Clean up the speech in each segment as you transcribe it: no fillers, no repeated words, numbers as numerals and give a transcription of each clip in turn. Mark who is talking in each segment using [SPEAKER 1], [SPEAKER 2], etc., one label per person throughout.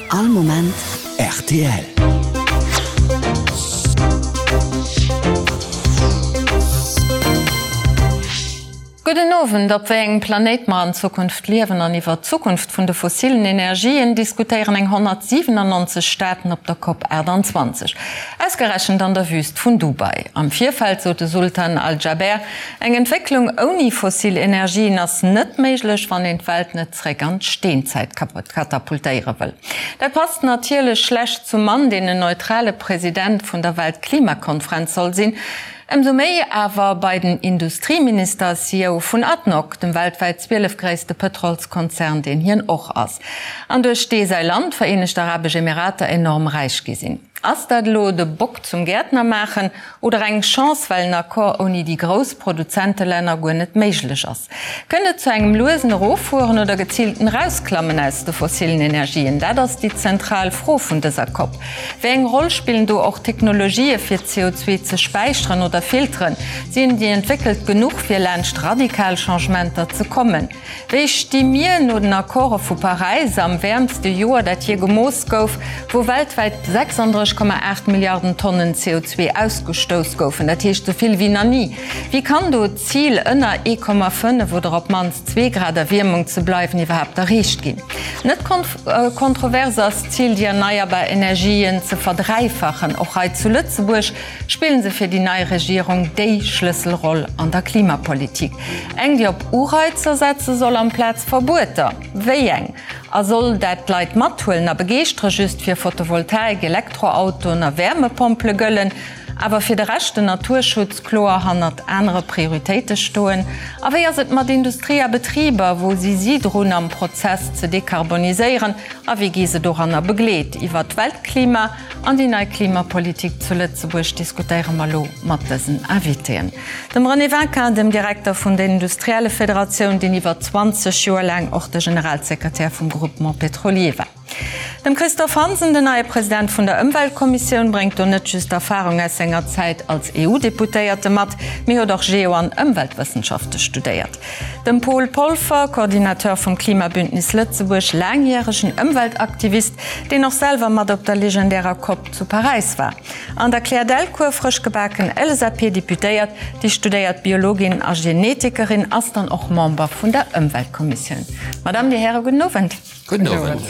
[SPEAKER 1] All Moment rtl.
[SPEAKER 2] Gudden Owend. Op wéi engem Planéit mer an Zukunft liewen an iwwer d'Zukunft vun de fossilen Energien diskutéieren eng 197 Staaten op der Cop 28. Ausgerechent an der Wüst vun Dubai. Am Virfeld sot de Sultan Al Jaber, Eng Entwécklung ouni fossil Energien ass net méiglech, wann een d'Welt net zréck an d'Steenzäit katapultéiere wëll. Dat passt natierlech schlecht zum Mann, deen en neutrale President vun der Weltklimakonfrenz soll sinn. Ëmsou méi awer bei den Industrieminister, CEO vun ADNOC, dem weltwäit 12 gréisste Pëtrolskonzern, deen hien och ass, an duerch dee säi Land, d'Vereenegt Arabesch Emirater, enorm räich gi sinn. Ass dat elo de Bock zum Gäertner maachen oder eng Chance, well en Accord ouni déi grouss Produzentelänner guer net méiglech ass? Kënnt et zu engem luesen Eroffueren oder geziilten Erausklammen aus de fossilen Energien? Dat ass déi zentral Fro vun dëser Cop. Wéi eng Roll spillen do och Technologië fir CO2 ze späicheren oder filteren? Sinn déi entwéckelt genuch fir laanscht radikal Changementer ze kommen? Wéi sti mir no den Accorde vu Paräis am wäermste Joer, dat jee gemooss gouf, wou weltwäit 36,8 Milliarden Tonnen CO2 ausgestouss goufen, dat heescht esou vill wéi nach ni? Wéi kann do d'Zil, ënner 1,5 oder op d'mannst zwee Grad Erwiermung ze bleiwen, iwwerhaapt erreecht ginn? Net kontrovers ass d'Zil, déi erneierbar Energien ze verdräifachen. Och hei zu Lëtzebuerg spillen se fir déi nei Regierung déi Schlësselroll an der Klimapolitik. Eng, déi op Ureizer setze soll amplaz Verbueter. Wéi eng? A soll dat d'Leit mathuelen a begeeschtere just fir Photovoltaik, Elektroautoen a Wäermepompele gëllen, awer fir de Rescht, den Naturschutz, kloer hannert anere Prioritéite stoen? A wéi ass et mat Industrie a Betriber, wou si si drun am Prozess ze dekarboniséieren a wéi gi se doranner begleet? Iwwer d'Weltklima An déi nei Klimapolitik zu Lëtzebuerg diskutéiere mer elo mat dësen Invitéen, dem René Winkin, dem Direkter vun der Industriellefederatioun, deen iwwer 20 Joer laang och de Generalsekretär vum Groupement pétrolier war, dem Christophe Hansen, den neie President vun der Ëmweltkommissioun, bréngt do net just Erfarung aus senger Zäit als EU-Deputéierte mat, mee huet och Geo an Ëmweltwëssenschafte studéiert. Dem Paul Polfer, Coordinateur vum Klimabündnis Lëtzebuerg, laangjäregen Ëmweltaktivist, deen och selwer mat op der legendärer Cop zu Paräis war. An der Claire Delcourt, frësch gebaken LSAP-Deputéiert, déi studéiert Biologin a Genetikerin ass, dann och Member vun der Ëmweltkommissioun. Madame, Dir Häre, gudden Owend.
[SPEAKER 3] Gudden Owend.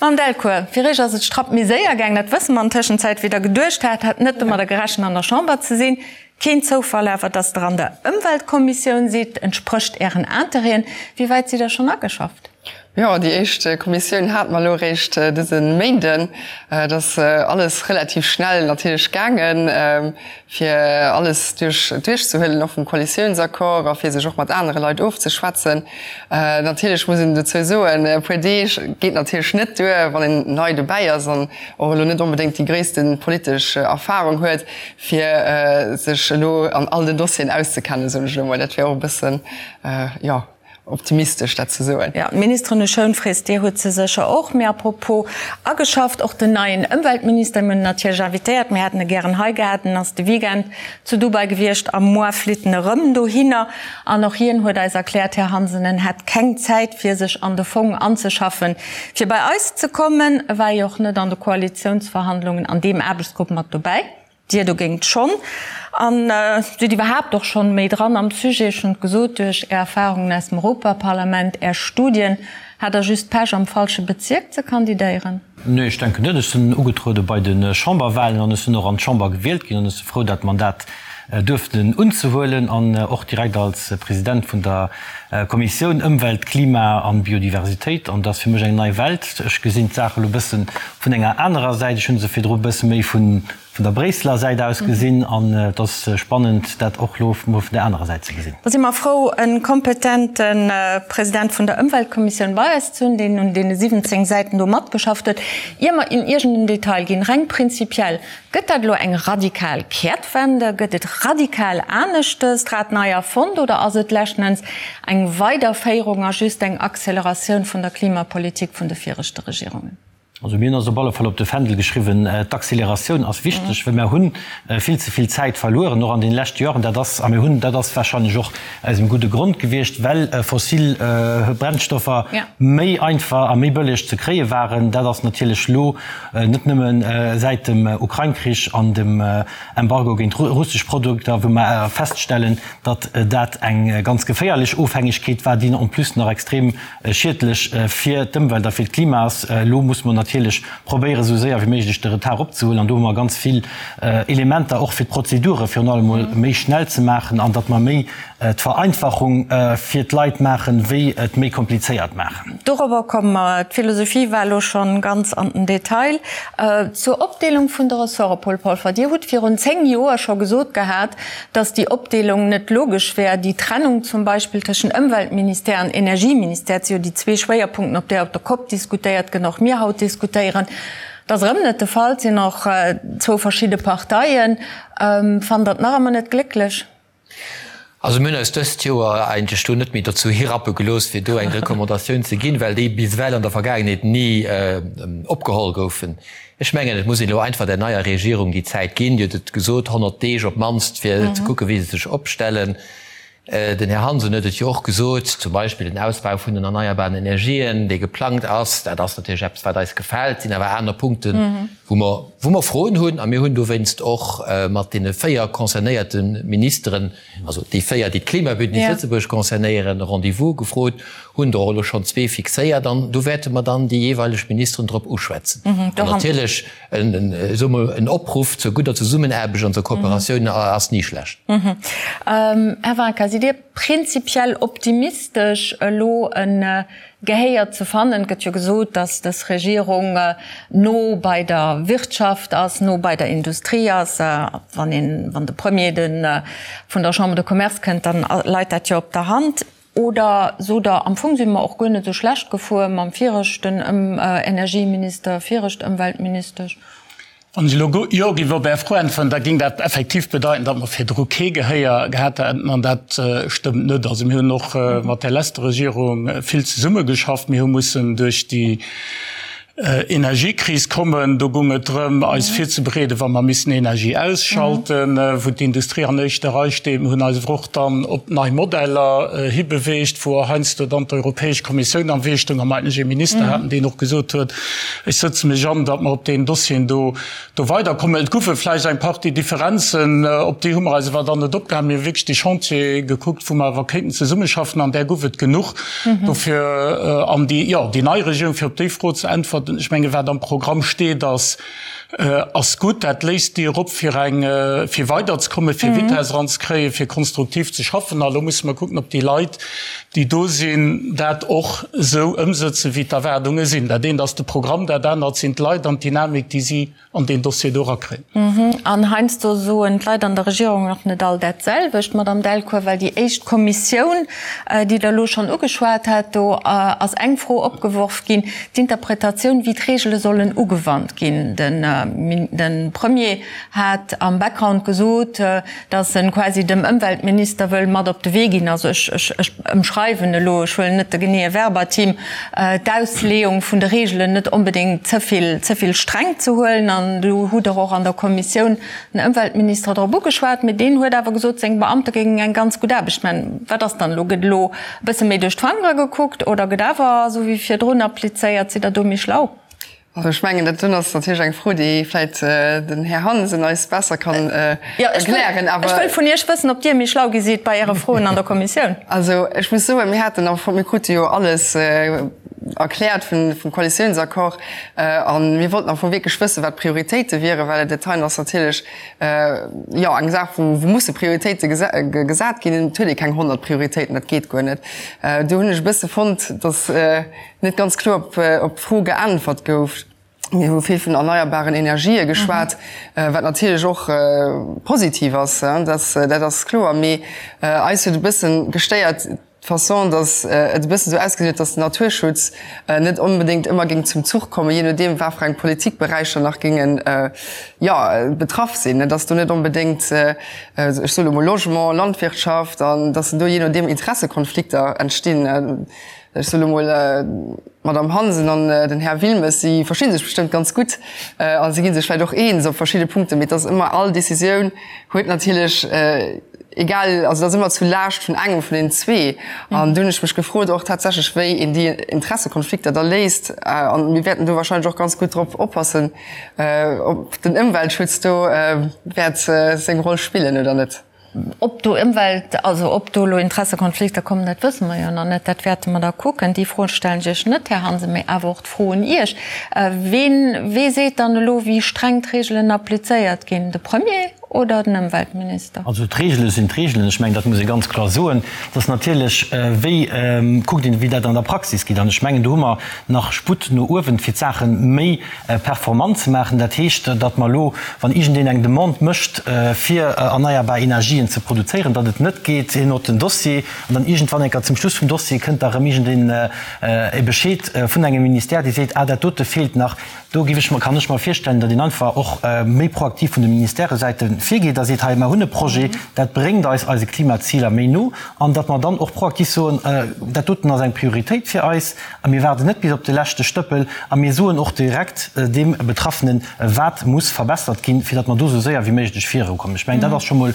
[SPEAKER 2] Madame Delcourt, fir Iech ass et strapp méi séier gaang, dat wësse mer an Tëschenzäit, wéi Der geduecht hat. Hat net domadder gerechent, an der Chamber ze sinn. Keen Zoufall awer, dass Der an der Ëmweltkommissioun sidd, entsprécht Ären Interêten. Wéi wäit sidd Der schonn ageschafft?
[SPEAKER 3] Jo, déi éischt Kommissioun hate mer elo eréischt dëse Méinden. Et ass alles relativ schnell natierlech gaangen, fir alles duerch duerchzehuelen, och vum Koalitiounsaccord a fir sech och mat anere Leit ofzeschwätzen. Natierlech muss een dozou soen, e puer Deeg geet natierlech net duer, wann een nei dobäi ass an och elo net onbedéngt déi gréisste politesch Erfarung huet, fir sech elo an all den Dossieren auszekennen, soen ech elo mol. Dat wär och e bëssen, jo. Optimistesch dat ze soen.
[SPEAKER 2] Jo, d'Ministeren hu Schounfrees, Dir hutt se sécher och. Mee apropos ageschafft, och den neien Ëmweltminister, mir hunn en natierlech invitéiert, mir hätten e gären hei gehat, en ass de Weekend zu Dubai gewiescht a muer flitt en erëm dohinner. An och hien huet eis erkläert, Här Hansen, en hätt keng Zäit fir sech an de Fong anzeschaffen, fir bei eis ze kommen. E war jo och net an de Koalitiounsverhandlungen an deem Aarbechtsgrupp mat dobäi. Dir dogéint schonn. An sidd iwwerhaapt och schonn méi dran am Sujet. Ech hunn et gesot, duerch Är Erfahrungen aus dem Europaparlament, Är Studien. Hat Der just Pech am falsche Bezierk ze kandidéieren?
[SPEAKER 4] Nee, ech denken net. Ech sinn ugetruede bei de Chamberwahlen an ech sinn och an d'Chamber gewielt ginn an ech si frou dat Mandat duerften unzehuelen an och direkt als President vun der Kommissioun Ëmwelt, Klima an Biodiversitéit. An dat ass fir mech eng nei Welt. Ech gesinn d'Saach elo e bësse vun enger anerer Säit. Ech hu se virdru e bësse méi vun der Bréisseler Säit aus gesinn an et ass spannend, dat och elo mol vun der anerer Säit ze gesinn.
[SPEAKER 2] Da si mer frou, e kompetente President vun der Ëmweltkommissioun bei eis ze hunn, deen un deene 17 Säiten do matgeschafft huet. Ier mer in iergend en Detail ginn, reng prinzipiell, Gëtt dat elo eng radikal Kehrtwende? Gëtt et radikal aneschtes, d'Rad nei erfonnt oder ass et leschten Enns eng Weiderféierung a just eng Acceleratioun vun der Klimapolitik vun de viregte Regierungen?
[SPEAKER 4] Also mir hunn eis op alle Fall op de Fändel geschriwwen, d'Accélératioun ass wichteg, well mir hu vill ze vill Zäit verlueren, och an deene leschte Joren. Dat ass, a mir hunn, dat ass wahrscheinlech och aus engem gudde Grond gewiescht, well fossil Brennstoffer méi einfach a méi bëlleg ze kréie waren. Dat ass natierlech elo net nëmme säit dem Ukrain-Krich an dem Embargo géint russesch Produkter, wou mer feststellen, datt dat eng ganz geféierlech Ofhängegkeet war, déi en plus nach extrem schiedlech fir d'Ëmwelt a fir d'Klima ass. Elo muss mer natierlech probéieren, esou séier wéi méiglech de Retard opzehuelen. An do hu mer ganz vill Elementer, och fir d'Prozedure virun allem emol méi schnell ze maachen an datt mer méi d'Vereinfachung fir d'Leit maachen, wéi et méi komplizéiert maachen.
[SPEAKER 2] Dorobber komme mer. D'Philosophie war elo schonn ganz an den Detail. Zur Opdeelung vun de Ressorte, Paul Polfer, Dir hutt virun 10 Joer scho gesot gehat, dass déi Opdeelung net logesch wär, déi Trennung zum Beispill tëschent Ëmweltministère an Energieministère, dat si jo déi zwee Schwéierpunkten, op där op der Cop diskutéiert gëtt, och mir haut diskutéieren. Dat ass erëm net de Fall, et sinn och zwou verschidde Parteien. Fannt Der et nach ëmmer net glécklech?
[SPEAKER 5] Also mir hunn eis dëst Joer eigentlech do net méi dozou hirappe gelooss, fir do eng Recommandatioun ze ginn, well déi bis ewell an der Vergaangenheet ni opgeholl goufen. Ech mengen, et muss een elo einfach der neier Regierung déi Zäit ginn, Dir hutt et gesot, 100 Deeg op d'mannst, fir ze kucken, wéi se sech opstellen. Den Här Hansen huet et jo och gesot, zum Beispill den Ausbau vun den erneierbaren Energien, dee geplangt ass, dat ass natierlech eppes, wat eis gefält. Et sinn awer aner Punkten, wou mer, wou mer Froen hunn. A mir hunn dowéinst och mat deene 4 concernéierte Ministeren, also déi 4, déi d'Klimabündnis Lëtzebuerg concernéieren, e Rendez-vous gefrot, hunn der och elo schonn zwee fixéiert an do wäerte mer dann déi jeeweileg Ministeren drop uschwätzen. An natierlech, soe mer, en Opruff zur gudder Zesummenaarbecht an zur Kooperatioun ass ni schlecht.
[SPEAKER 2] Här Vaca, sidd Dir prinzipiell optimistesch, elo e Gehéier ze fannen? Et gëtt jo gesot, datt dës Regierung no bei der Wirtschaft ass, no bei der Industrie ass. Wann een, wann de Premier de vun der Chambre de Commerce kënnt, dann leit dat jo op der Hand. Oder sot Der, am Fong si mer och guer net esou schlecht gefuer mam viregten Energieminister, virecht Ëmweltministesch?
[SPEAKER 6] Wann ech elo Jo géif op Är Fro äntweren, da géing dat effektiv bedeiten, datt mer virdru kee Gehéier gehat hätten, an dat stëmmt net. Also mir hunn och mat där leschter Regierung vill zesummegeschafft. Mir hu mussen duerch déi Energiekris kommen. Do goung et drëm, eis virzebereeden, wa mer missen Energie ausschalten, wou d'Industrie an éischter Rei steet. Mir hunn eis awer och dann op nei Modeller hibeweegt, wou och heiansdo dann d'Europäesch Kommissioun am Wee stoung a mer eigentlech ee Minister haten, deen och gesot huet, Ech sëtze mech an, datt mer op deenen Dossieren do do weiderkommen. Et goufe vläicht eng Partie Differenzen, op déi hu mer eis awer dann net opgehalen. Mir hu wierklech déi Chantiere gekuckt, wou mer awer kéinten zesummeschaffen, an där gouf et genuch. Dofir, an déi, jo, déi nei Regierung, fir op déi Fro ze äntwerten, ech menge wat am Programm steet, ass, ass gutt. Dat léisst d'Dier op fir eng, fir weiderzekommen, fir Vitesse eranzekréien, fir konstruktiv ze schaffen. A lo musse mer kucken, ob déi Leit, déi do sinn, dat och esou ëmsëtzen, wéi d'Erwaardunge sinn. Dat eent ass de Programm, dat anert sinn d'Leit an d'Dynamik, déi si an deen Dossier do erakréien.
[SPEAKER 2] An heiansdo soen d'Leit an der Regierung och net all dat selwecht, Madamm Delcourt, well déi éischt Kommissioun, déi Der elo schonn ugeschwat hat, do ass eng Fro opgeworf ginn, d'Interpretatioun, wéi d'Regele sollen ugewannt ginn. De Premier hat am Background gesot, dass en quasi dem Ëmweltminister wëll mat op de Wee ginn, also ech, ech, ech ëmschreiwen elo, ech huelen net de geneeë Verbatim, d'Ausleeung vun de Regeln net onbedéngt ze vill, ze vill streng ze huelen. An do hutt Der och an der Kommissioun den Ëmweltminister drop ugeschwat, mee deen huet awer gesot, seng Beamte géingen eng ganz gutt Aarbecht maachen. Wat ass dann elo? Gëtt elo e bësse méi duerch d'Fangere gekuckt oder gëtt awer esou wéi virdrun applizéiert? Sidd Der do méi schlau?
[SPEAKER 3] Also ech mengen, dat doen ass natierlech eng Fro, déi vläit den Här Hansen eis besser kann erklären.
[SPEAKER 2] Jo, ech wëll vun Iech wëssen, ob Dir méi schlau gi sidd bei Äre Froen an der Kommissioun.
[SPEAKER 3] Also ech muss soen, mir haten am Fong, mir krute jo alles erkläert vum Koalitiounsaccord a mir wollten am Fong wierklech wëssen, wat d'Prioritéite wieren, well dat heien ass natierlech, jo, eng Saach, wou musse Prioritéite gesat ginn. Et huet ee keng 100 Prioritéiten, dat geet guer net. Do hunn ech e bësse fonnt, datt net ganz kloer op d'Fro geäntwert gouf. Mir hu vill vun erneierbaren Energië geschwat, wat natierlech och positiv ass, dat ass kloer. Mee eis huet e bësse gestéiert d'Façon, datt et e bëssen esou ausgesinn huet, datt den Naturschutz net onbedéngt ëmmer géing zum Zuch kommen, jee nodeem wat fir eng Politikberäicher nach géingen, jo, betraff sinn. Datt do net onbedéngt, ech soe lo mol Logement, Landwirtschaft, an datt do jee nodeem Interessekonflikter entstinn. Ech soe lo mol, d'Madame Hansen an den Här Wilmes, si versti sech bestëmmt ganz gutt a si gi sech vläicht och eens op verschidde Punkten, mee et ass ëmmer, all Décisioun huet natierlech, egal, also et ass ëmmer zu Laascht vun engem vun deenen zwee. An do hunn ech mech gefrot och tatsächlech, wéi een déi Interessekonflikter da léist. A mir wäerten do wahrscheinlech och ganz gutt drop oppassen, ob den Ëmweltschutz do wäert seng Roll spillen oder net.
[SPEAKER 2] Ob do Ëmwelt, also ob do elo Interessekonflikter kommen, dat wësse mer jo nach net. Dat wäerte mer da kucken. Déi Fro stellen ech Iech net, Här Hansen, mee awer och d'Fro un Iech, Ween, wee seet dann elo, wéi streng d'Reegelen applizéiert ginn? De Premier oder den Ëmweltminister?
[SPEAKER 4] Also d'Reegele sinn d'Reegelen. Ech mengen, dat muss ee ganz kloer soen. Et ass natierlech, wéi kuckt een, wéi dat an der Praxis geet. An ech mengen, do hu mer nach Sputt no uewen, fir d'Saache méi performant ze maachen. Dat heescht, datt mer elo, wann iergendeen eng Demande mécht, fir erneierbar Energien ze produzéieren, datt et net geet, hien huet den Dossier an dann iergendwann eng Kéier zum Schluss vum Dossier kënnt da erëm iergendeen e Bescheed vun engem Ministère, dee seet, ah dat dote feelt nach. Do géif ech mer, kann ech mer virstellen, datt een einfach och méi proaktiv vun de Ministèresäite virgeet a seet, hei mer hunn e Projet, dat bréngt eis eise Klimaziler méi no, an datt mer dann och proaktiv soen, dat doten ass eng Prioritéit fir eis, A mir waarden net bis op de leschte Stëppel a mir soen och direkt deem Betraffenen, wat muss verbessert ginn, fir datt mer do esou séier wéi méiglech virukommen. Ech mengen, dat ass scho mol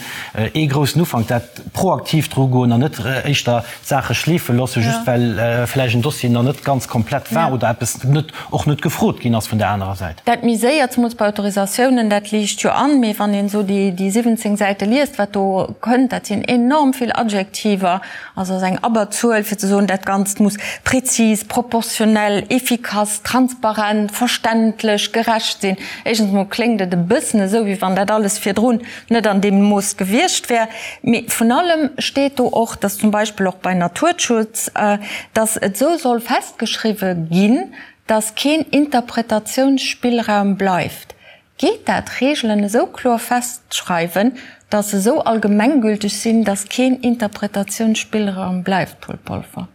[SPEAKER 4] ee groussen Ufank, dat proaktiv drugoen an net éischter d'Saache schleefe loossen, just well vläicht en Dossier nach net ganz komplett war oder eppes net, och net gefrot ginn ass vun där anerer Säit.
[SPEAKER 2] Dat méi séier, zemools bei Autorisatiounen, dat liicht jo an. Mee wann een esou déi 17 Säite liest, wat do kënnt, dat sinn enorm vill Adjektiver. Also ass eng Abberzuel, fir ze soen, dat Ganzt muss prezis, proportionell, efficace, transparent, verständlech, gerecht sinn. Éischtens emol kléngt et e bëssen esou, wéi wann dat alles virdrun net an deem Mooss gewiescht wär. Mee vun allem steet do och, dass zum Beispill och bei Naturschutz, dass et esou soll festgeschriwwe ginn, dass keen Interpretatiounsspillraum bleift. Geet dat, Reegelen esou kloer festschreiwen, datt se esou allgemenggülteg sinn, datt keen Interpretatiounsspillraum bleift, Paul Polfer?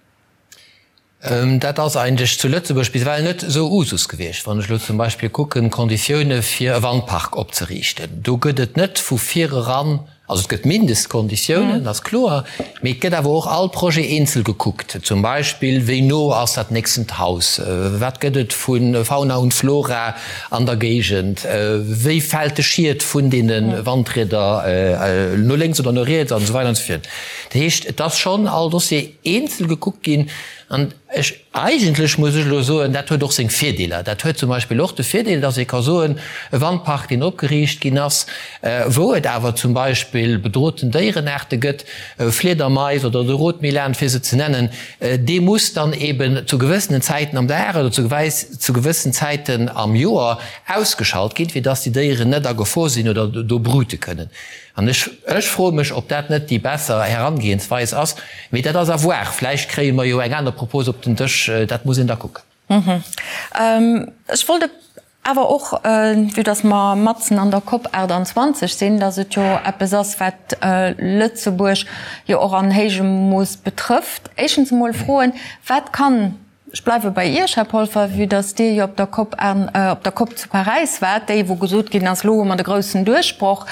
[SPEAKER 5] Dat ass eigentlech zu Lëtzebuerg bis ewell net esou Usus gewiescht. Wann ech elo zum Beispill kucken, d'Konditioune fir e Wandpark opzeriichten, do gëtt et net vu vireran Also et gëtt Mindestkonditiounen, ass kloer, mee et gëtt awer och all Projet eenzel gekuckt. Zum Beispill, wéi no ass dat nächstent Haus, wat gëtt et vu Fauna und Flora an der Géigend, wéi fält de Schiet vun deene Wandrieder no lénks oder no riets an esou weider an esou virun. Dat heescht, et ass schonn all Dossier eenzel gekuckt ginn an ech, Eigentlech muss ech elo soen, dat huet och seng Virdeeler. Dat huet zum Beispill och de Virdeel, dass ee ka soen, e Wandpark, deen opgeriicht ginn ass, wou et awer zum Beispill bedrohten Déierenaarte gëtt, Fliedermais oder de Rotmilan, fir se ze nennen, dee muss dann eben zu gewëssenen Zäiten am Dag oder zu gewëssen Zäiten am Joer ausgeschalt ginn, fir dass déi Déieren net a Gefor sinn oder do brute kënnen. An ech, ech froe mech, ob dat net déi besser Herangehensweis ass. Mee dat ass à voir. Vläicht kréie mer jo eng aner Propos op den Dësch. Dat muss een da kucken.
[SPEAKER 2] Ech wollt awer och, vue dass mer matzen an der COP 28 sinn, dass et jo eppes ass, wat Lëtzebuerg jo och an héijem Mooss betrëfft, éischtens emol froen, Wat kann Ech bleiwe bei Iech, Här Polfer, vue dass Dir jo op der COP, op der COP zu Paräis waart, déi wou gesot ginn ass, elo hu mer de groussen Duerchbroch.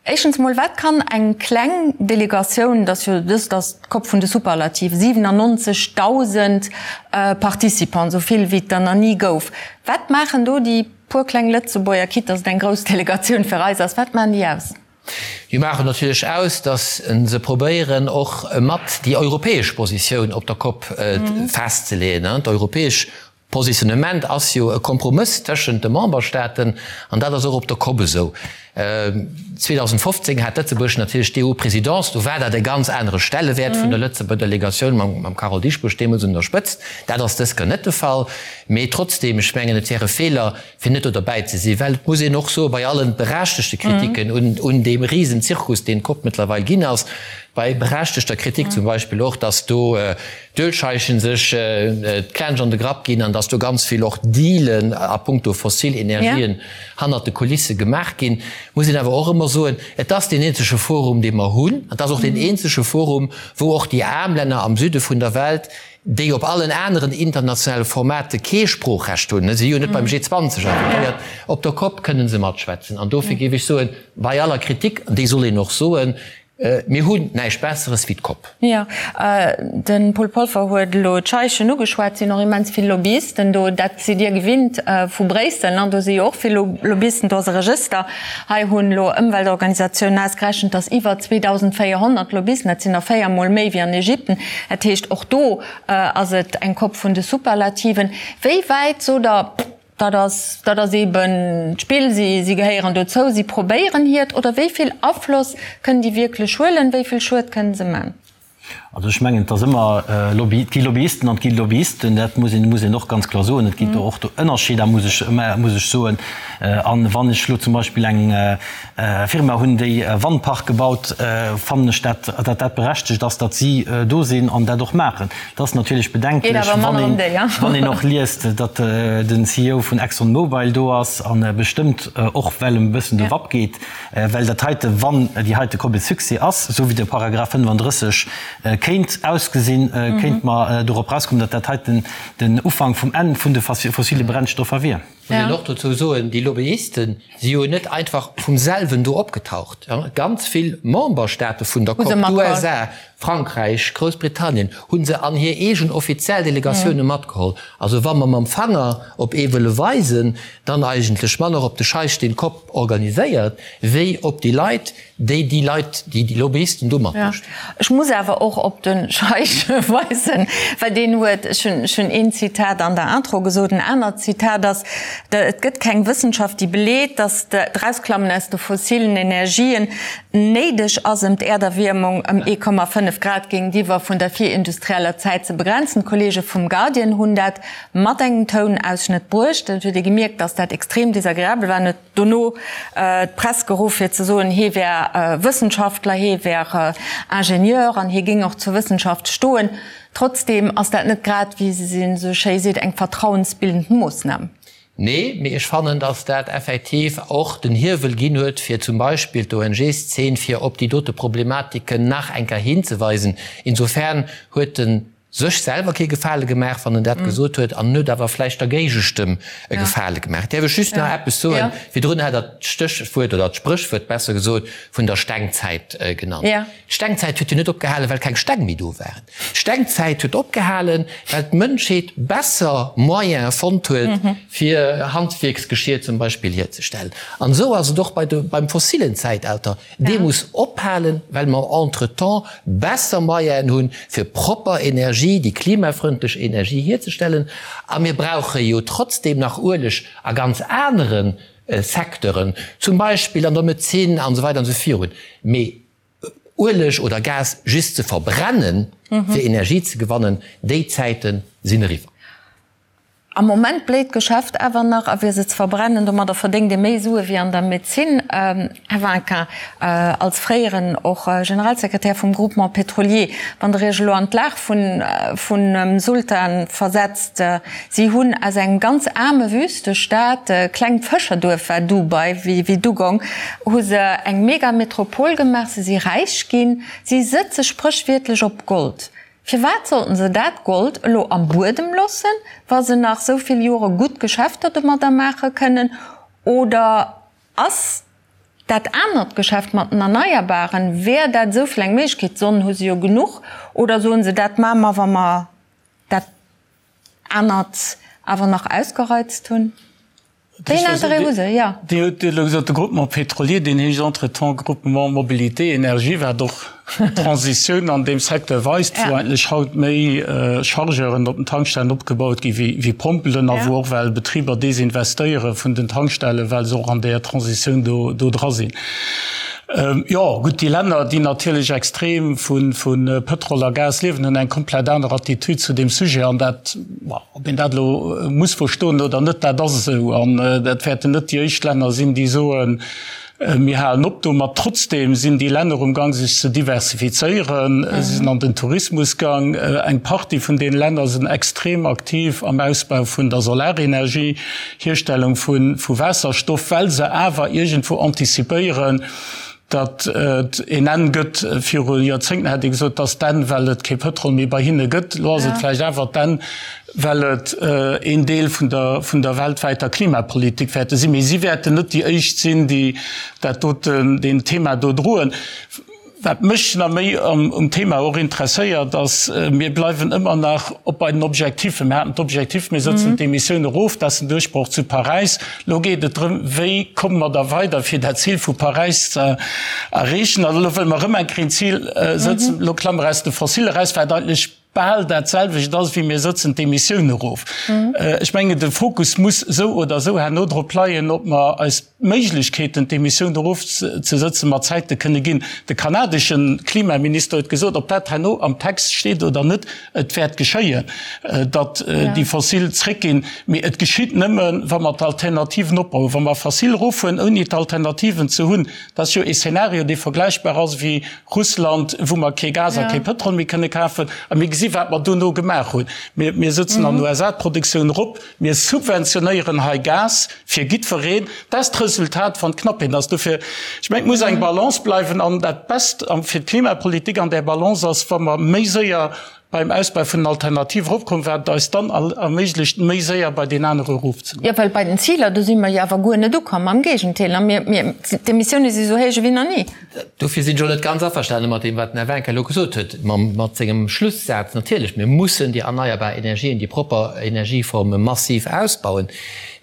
[SPEAKER 2] Éischtens emol, wat kann eng kleng Delegatioun, dat ass jo dëst ass d'COP vun de Superlative, 97.000 Participants, esou vill wéi et der nach ni gouf, wat maachen do déi puer kleng Lëtzebuerger, quitte dass et eng grouss Delegatioun fir eis ass, wat maachen déi aus?
[SPEAKER 5] Déi maachen natierlech aus, datt se probéieren och mat déi europäesch Positioun op der Cop festzeleeën. D'europäesch Positionnement ass jo e Kompromëss tëschent de Memberstaaten an dat ass och op der Cop esou. 2015 hat Lëtzebuerg natierlech d'EU-Présidence, do war dat e ganz anere Stellewäert vun der Lëtzebuerger Delegatioun mam Carole Dieschbourg deemools un der Spëtzt. Dat ass dës Kéier net de Fall. Mee trotzdeem, ech mengen, et wär e Feeler, fir net do derbäi ze sinn, well et muss een och soen, bei allen berechtegte Kritiken un, un deem Risenzirkus, deen d'Cop mëttlerweil ginn ass, bei berechtegter Kritik zum Beispill och, dass do d'Ölscheichen sech d'Klensch an de Grapp ginn an dass do ganz vill och Dealen a puncto fossil Energien hannert de Kulisse gemaach ginn, muss een awer och ëmmer soen, et ass deen eenzege Forum, dee mer hunn, et ass och deen eenzege Forum, wou och déi aarm Länner am Süde vun der Welt, déi op allen aneren internationale Formate kee Sproochrecht hunn, si jo net beim G20 invitéiert, op der Cop kënne se matschwätzen. An dofir géif ech soen, bei aller Kritik, an déi soll een och soen, Mir hunn näischt Besseres wéi d'Kopp.
[SPEAKER 2] Jo, de Paul Polfer huet elo d'Scheichen ugeschwat. Et sinn och immens vill Lobbyisten do. Dat sidd Dir gewinnt vu Bréissel, ne? Do si jo och vill Lobbyisten. Do ass e Regëster. Hei hunn elo Ëmweltorganisatiounen ausgerechent, datt iwwer 2.400 Lobbyisten, dat sinn der 4 Mol méi wéi an Ägypten. Dat heescht, och do ass et eng Kopp vun de Superlativen. Wéi wäit, sot Der, Dat ass, dat ass eeben d'Spill, si, si gehéieren dozou, si probéieren hiert, oder wéi vill Afloss kënnen déi wierklech huelen, wéi vill Schued kënnen se man?
[SPEAKER 4] Also ech mengen, et ass ëmmer Lobby, et gi Lobbyisten an et gi Lobbyisten, dat muss een, muss een och ganz kloer soen. Et ginn do och do Ënnerscheeder, muss ech, muss ech soen. An wann ech elo zum Beispill eng Firma hunn, déi e Wandpark gebaut, fannen ech dat, datt dat berechtegt ass, datt si do sinn an dat och maachen. Et ass natierlech bedenklech, wann een och liest, datt den CEO vun Exxon Mobil do ass a bestëmmt och well em e bëssen de Wapp geet, well dat heite, wann déi heite Kopp e Succès ass, esou wéi de Paragraph 35 kéint ausgesinn, kéinte mer dorop erauskommen, datt dat heiten den Ufank vum Enn vun de fossile Brennstoffer wier.
[SPEAKER 5] Muss een och dozou soen, déi Lobbyisten si jo net einfach vum selwen do opgetaucht. Ganz vill Memberstaate vun der Cop, d'USA, Frankräich, Groussbritannien, hu se an hir eegen offiziell Delegatioune matgeholl. Also wa mer mam Fanger op ee wëlle weisen, dann eigentlech manner op de Scheich, deen d'Cop organiséiert, wéi op déi Leit, déi déi Leit, déi déi Lobbyisten do matmécht.
[SPEAKER 2] Ech muss awer och op de Scheich weisen, well deen huet, ech hunn, ech hunn een Zitat an der Intro gesot, en anert Zitat ass, Et gëtt keng Wëssenschaft, déi beleet, datt d'Erausklammen aus de fossilen Energien néideg ass, ëm d'Äerderwiermung ëm 1,5 Grad géintiwwer vun der virindustrieller Zäit ze begrenzen. D'Kollege vum Guardian hunn dat mat engem Tounausschnëtt bruecht. Et huet ee gemierkt, datt dat extrem desagreabel war. En huet dono d'Press geruff fir ze soen, hee wär Wëssenschaftler, hee wär Ingenieur an hie géing och zur Wëssenschaft stoen. Trotzdeem ass dat net grad, wéi se esou schéi seet, eng vertrauensbildend Moossnam.
[SPEAKER 5] Nee, mee ech fannen, datt dat effektiv och den Hiewel ginn huet, fir zum Beispill d'ONG-Szene fir op déi dote Problematiken nach eng Kéier hinzeweisen. Insofern huet en sech selwer kee Gefale gemaach, wann en dat gesot huet, an en huet awer vläicht der Géigestëmm e Gefale gemaach. Däerf ech just nach eppes soen? Virdrun hat Der d'Stéchwuert oder d'Spréchwuert, besser gesot, vun der Stengzäit genannt. D'Stengzäit huet jo net opgehalen, well keng Steng méi do waren. D'Stengzäit huet opgehalen, well d'Mënschheet besser Moyene fonnt huet, fir Handwierksgeschier zum Beispill hierzestellen. An esou ass et och bei de, beim fossilen Zäitalter. Dee muss ophalen, well mer entretemps besser Moyenen hunn, fir propper Energie, déi klimafrëndlech Energie hierzestellen. A mir brauche jo trotzdem nach Ueleg a ganz anere Secteuren, zum Beispill an der Medezin an esou weider an esou virun. Mee Ueleg oder Gas just ze verbrennen, fir Energie ze gewannen, déi Zäite sinn eriwwer.
[SPEAKER 2] Am Moment bléit d'Geschäft awer nach, a fir se ze verbrennen, domadder verdéngt ee méi Sue wéi an der Medezin. Här Vinquin, als fréieren och Generalsekretär vum Groupement pétrolier, wann Der Iech elo an d'Lag vun Sultan versetzt, si hunn aus engem ganz aarme Wüstestaat, klengt Fëscherduerf war Dubai wéi Dugong, hu se eng Megametropol gemaach, se si räich ginn, si sëtze spréchwiertlech op Gold. Firwat sollten se dat Gold elo am Buedem loossen, wa se nach sou vill Jore gutt Geschäfter domadder maache kënnen? Oder ass dat anert Geschäft mat den Erneierbaren, wär dat esou vill eng Méiglechkeet? Sonn hu se jo genuch. Oder soen se, dat maache mer, wa mer dat anert awer nach ausgereizt hunn? Wéi een Interêt hu se? Jo.
[SPEAKER 6] Dir hutt elo gesot, de Groupement pétrolier, deen heescht entretemps Groupement Mobilité Énergie, wat och d'Transitioun an deem Secteur weist, wou eigentlech haut méi Chargeuren op den Tankstellen opgebaut gi wéi Pompelen a wou och well Betriber desinvestéiere vun den Tankstellen, well se och an där Transitioun do dra sinn. Jo, gutt, déi Länner, déi natierlech extrem vu Pëtrol a Gas liewen, hunn eng komplett aner Attitude zu deem Sujet an dat, Ob een dat elo muss verstoen oder net, dat ass esou. An dat wäerten net déi éischt Länner sinn, déi soen, mir halen op domat. Trotzdeem sinn déi Länner um Gang, sech ze diversifizéieren. Si sinn an den Tourismus gang. Eng Partie vun deene Länner sinn extrem aktiv am Ausbau vun der Solarenergie, Hierstellung vu Waasserstoff, well se awer iergendwou antizipéieren, Datt et een Enn gëtt, viru Joerzéngten hätt ee gesot, et ass d'Enn, well et kee Pëtrol méi bei hinne gëtt. Elo ass et vläicht awer d'Enn, well et een Deel vun der, vun der weltwäiter Klimapolitik wäerte sinn. Mee si wäerten net déi éischt sinn, déi dat doten, deen Thema do droen. Wat mech nach méi um Thema och interesséiert, ass, mir bleiwen ëmmer nach op bei den Objectifen. Mir haten d'Objectif, mir sëtzen d'Emissioun erof, dat ass den Duerchbroch zu Paräis. Elo geet et drëm, wéi komme mer da weider, fir dat Zil vu Paräis ze erreechen. An elo wëlle mer erëm eng Kéier een Zil sëtzen, elo klamme mer aus de Fossile eraus, wat eigentlech bal dat selwecht ass wéi mir sëtzen d'Emissioun erof. Ech mengen, de Fokus muss esou oder esou herno drop leien, ob mer eis d'Méiglechkeeten, d'Emissioun erofzesëtzen, mat Zäite kënne ginn. De kanadesche Klimaminister huet gesot, ob dat herno am Text steet oder net, et wäert geschéien, datt déi Fossil zréckginn. Mee et geschitt nëmmen, wa mer d'Alternativen opbauen. Wa mer Fossil eroffueren, ouni d'Alternativen ze hunn, dat ass jo ee Szenario, dee vergläichbar ass wéi Russland, wou mer kee Gas a kee Pëtrol méi kënne kafen. A mir gesi wat mer dono gemaach hunn. Mir, mir sëtzen an den USA d'Produktioun erop, mir subventionéieren hei Gas fir jiddwereen. Dat ass d'Resultat, wann d'Knappheet ass. Dofir, ech mengen, et muss eng Balance bleiwen. An dat Best fir d'Klimapolitik an där Balance ass, wa mer méi séier beim Ausbau vun den Alternative eropkommen, wat et eis dann erméiglecht, méi séier bei deen anere erofzegoen.
[SPEAKER 2] Jo, well bei den Ziler, do si mer jo awer guer net ukomm, am Géigenteil, a mir, mir, d'Emissioune si sou héich ewéi nach ni.
[SPEAKER 5] Dofir sinn ech och net ganz averstane mat deem, wat den Här Winck elo gesot huet, mat sengem Schlussaz. Natierlech, mir mussen déi erneierbar Energien, déi propper Energieforme massiv ausbauen.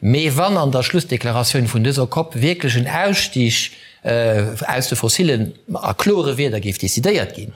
[SPEAKER 5] Mee wann an der Schlussdeklaratioun vun dëser COP wierklech en Ausstig aus de Fossilen a klore Wierder géif decidéiert ginn,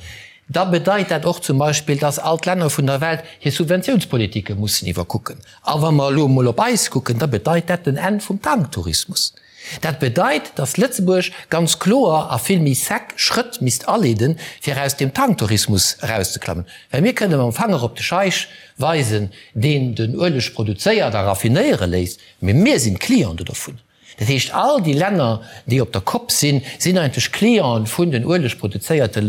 [SPEAKER 5] da bedeit dat och zum Beispill, dass all d'Länner vun der Welt hir Subventiounspolitike mussen iwwerkucken. A wa mer elo emol op eis kucken, da bedeit dat den Enn vum Tanktourismus. Dat bedeit, dass Lëtzebuerg ganz kloer a vill méi sec Schrëtt misst aleeden, fir aus deem Tanktourismus erauszeklammen. Well mir kënne mam Fanger op de Scheich weisen, deen den Ueleg produzéiert a raffinéiere léisst, mee mir sinn d'Cliente dovun. Dat heescht, all déi Länner, déi op der Kopp sinn, sinn eigentlech Clienten vun den uelegproduzéierte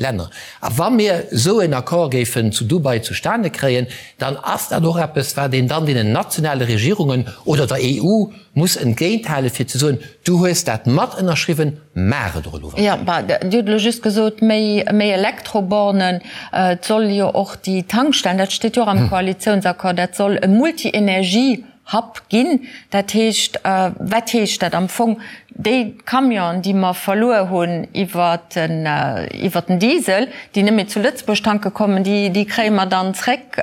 [SPEAKER 5] Länner. A wa mir esou en Accord géifen zu Dubai zustane kréien, dann ass dat och eppes, wat een dann deenen nationale Regierungen oder der EU muss entgéinthalen, fir ze soen, Du hues dat mat ënnerschriwwen, maach et och elo.
[SPEAKER 2] Jo, bah, Dir hutt elo just gesot, méi, méi Elektrobornen. Et soll jo och déi Tankstellen, dat steet jo och am Koalitiounsaccord, dat soll e Multi-Energie Hub ginn. Dat heescht, wat heescht dat am Fong? Déi Camionen, déi mer verluer hunn iwwer den, iwwer den Diesel, déi net méi zu Lëtzebuerg tanke kommen, déi, déi kréie mer dann zréck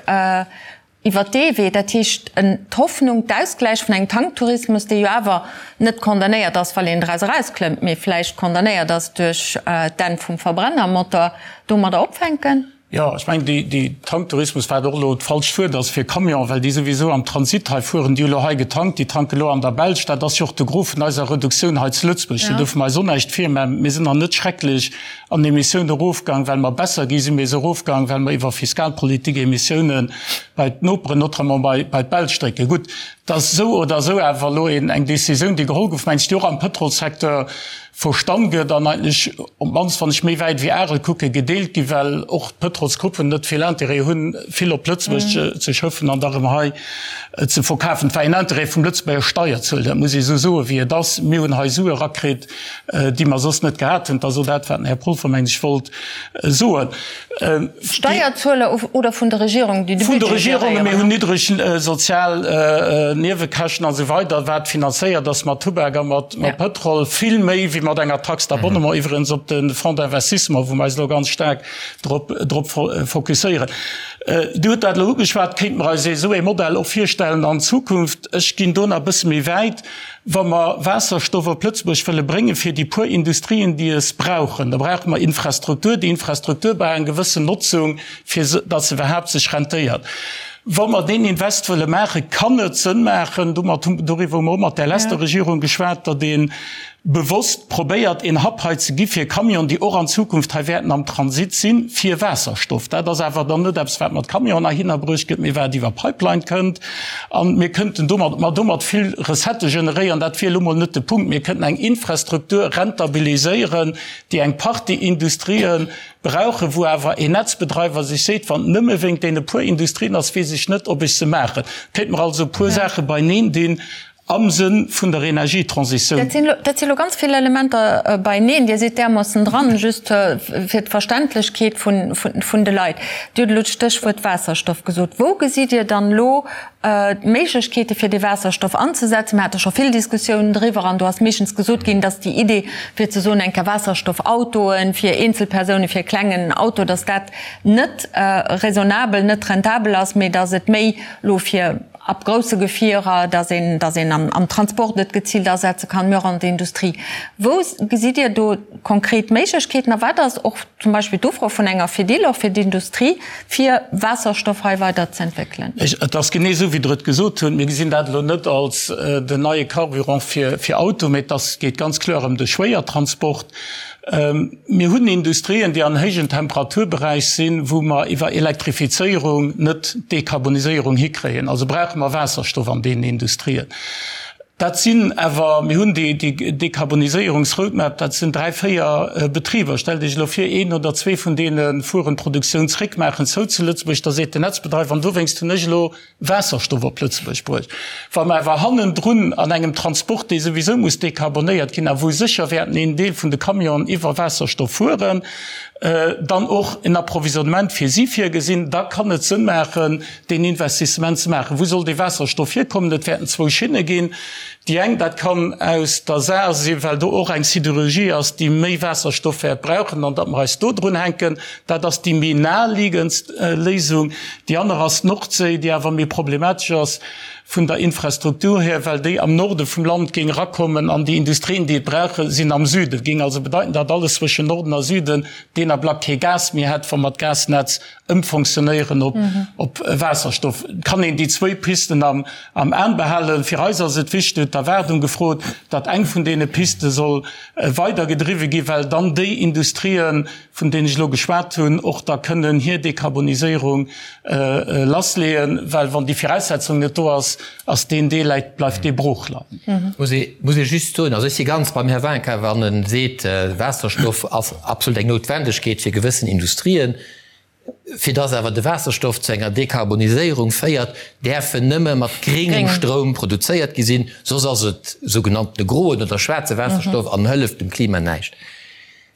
[SPEAKER 2] iwwer dee Wee. Dat heescht, d'Hoffnung, d'Ausgläich vun engem Tanktourismus, dee jo awer net condamnéiert ass, well een draus erausklëmmt, mee vläicht condamnéiert ass duerch d'Enn vum Verbrennermotor, domadder opfänken?
[SPEAKER 6] Jo, ech mengen, déi, déi Tanktourismus, wat och elo d'falscht Wuert ass fir Camion, well déi souwisou am Transit hei fueren, déi hu lo hei getankt, déi tanke lo an der Belsch. Dat ass jo och de Gros vun eiser Reduktioun hei zu Lëtzebuerg. Do duerfe mer eis och näischt virmaachen. Mir sinn nach net schrecklech an Emissioun erofgaang, well mer besser gi sinn, mee se erofgaang, well mer iwwer Fiskalpolitik Emissiounen bei d'Noperen, notamment bei, bei d'Belsch drécken. Gutt, et ass esou oder esou awer elo een, eng Décisioun, déi geholl gouf, mengen ech, déi och am Pëtrolssecteur Verstann gëtt an eigentlech, op d'mannst wann ech méi wäit wéi Arel kucken, gedeelt ginn, well och d'Pëtrolsgruppen net vill Intérêt hunn, vill op Lëtzebuerg ze schëffen an da rëm hei ze verkafen. Et war een Intérêt vum Lëtzebuerger Steierzueler, dat muss ee esou soen, wéi et ass. Mir hunn hei Sue erakritt, déi mer soss net gehat hunn. Dat ass och dat, wat den Här Polfer, mengen ech, wollt soen.
[SPEAKER 2] Steierzueler oder vun der Regierung, déi de
[SPEAKER 6] Budget géréieren? Vun de Regierungen. Mir hunn niddreg sozial Niewekäschten a sou weider, wat finanzéiert ass mat Tubak a mat Pëtrol, vill méi wéi mat enger Taxe d'abonnement, iwwregens op de Fonds d'investissement, wou mer eis elo ganz staark drop drop fokusséieren. Dir hutt dat elo ugeschwat, kéinte mer eis esou ee Modell och virstellen an Zukunft? Ech ginn do nach e bësse méi wäit. Wa mer Waasserstoff op Lëtzebuerg wëlle bréngen, fir déi puer Industrien, déi es brauchen, da brauche mer Infrastruktur. Déi Infrastruktur brauch eng gewëssen Notzung, fir datt se iwwerhaapt sech rentéiert. Wa mer deen Invest wëlle maachen, kann et Sënn maachen, domat hu, doriwwer hu mer och mat där leschter Regierung geschwat, datt ee bewosst probéiert, een Hub hei ze gi fir Camionen, déi och an Zukunft hei wäerten am Transit sinn, fir Waasserstoff. Dat ass awer dann net eppes, wat mat Camionen heihinner bruecht gëtt, mee wat iwwer Pipeline kënnt. A mir kënnten domat, ma domat vill Recettë generéieren. Dat wier elo mol net de Punkt. Mir kënnten eng Infrastruktur rentabiliséieren, déi eng Partie Industrië brauchen, wou awer een Netzbedreiwer sech seet, wann et nëmme wéingt deene puer Industrien ass, weess ech net, ob ech se maachen. Kéinte mer also e puer Saache beineen dinn. Am Sënn vun der Energietransitioun.
[SPEAKER 2] Dat si lo ganz vill Elementer beieneen. Dir sidd därmoossen dran, just fir d'Verständlechkeet vun de Leit. Dir hutt elo d'Stéchwuert Waasserstoff gesot. Wou gesitt Dir dann elo d'Méiglechkeete fir dee Waasserstoff anzesetzen? Mir hate scho vill Diskussiounen driwwer an do ass meeschtens gesot ginn, dass déi Idee fir ze soen, eng Kéier Waasserstoffautoe fir Eenzelpersounen, fir e klengen Auto, dass dat net raisonnabel, net rentabel ass, mee dass et méi elo fir ab grousse Gefierer, dass een, dass een am Transport et geziilt asetze kann, mee och an der Industrie. Wou gesitt Dir do konkret Méiglechkeeten a wat ass och zum Beispill d'Ufro vun enger Fedil och fir d'Industrie, fir Waasserstoff hei weider ze entwéckelen?
[SPEAKER 6] Et ass genee esou, wéi Der et gesot hutt. Mir gesinn dat elo net als den neie Carburant fir Auto, mee et ass, geet ganz kloer ëm de Schwéiertransport. Mir hunn Industrien, déi an héijen Temperaturberäich sinn, wou mer iwwer Elektrifizéierung net d'Dekarboniséierung hikréien. Also brauche mer Waasserstoff an deenen Industrien. Dat sinn awer, mir hunn déi Dekarboniséierungsroadmap, dat sinn dräi, véier Betriber. Stellt Iech elo vir, een oder zwee vun deene fueren d'Produktioun zréck, maachen zou zu Lëtzebuerg, da seet den Netzbedreiwer, an dowéinst hunn ech elo Waasserstoff op Lëtzebuerg bruecht. Wa mer awer hannendrun an engem Transport, dee souwisou muss dekarbonéiert ginn a wou sécher wäerten een Deel vun de Camionen iwwer Waasserstoff fueren, dann och en Approvisionnement fir si virgesinn, da kann et Sënn maachen, deen Investissement ze maachen. Wou soll dee Waasserstoff hierkommen? Et wäerten zwou Schinne ginn. Déi eng, dat kann aus der Saar sinn, well do och eng Sidérurgie ass, déi méi Waasserstoff wäert brauchen, an datt mer eis do drun hänken. Dat ass déi méi naheliegendst Léisung. Déi aner ass d'Nordséi, déi awer méi problematesch ass vun der Infrastruktur hier, well déi am Norde vum Land géing erakommen an déi Industrien, déi et brauchen, sinn am Süden. Géing also bedeiten, datt alles zwëschen Norden a Süden deen Ablack kee Gas méi hätt, wa mer d'Gasnetz ëmfonctionnéieren op Waasserstoff. Et kann een déi zwéi Pisten am Aen behalen. Fir eis ass et wichteg, huet d'Erwaardung gefrot, datt eng vun deene Piste soll weidergedriwwe ginn, well dann déi Industrien, vun deenen ech elo geschwat hunn, och da kënnen hir Dekarboniséierung lassleeën, well wann déi Viraussetzung net do ass, ass deen Deel, bleift dee brooch leien.
[SPEAKER 5] Muss ee, muss ee just soen, also ech si ganz beim Här Winkin, wann e seet, Waasserstoff ass absolut eng Noutwendegkeet fir gewëssen Industrien. Fir dass awer de Waasserstoff zu enger Dekarboniséierung féiert, däerf en nëmme mat gréngem Stroum produzéiert gi sinn, soss ass et sougenanntene groen oder schwaarze Waasserstoff an hëlleft dem Klima näischt.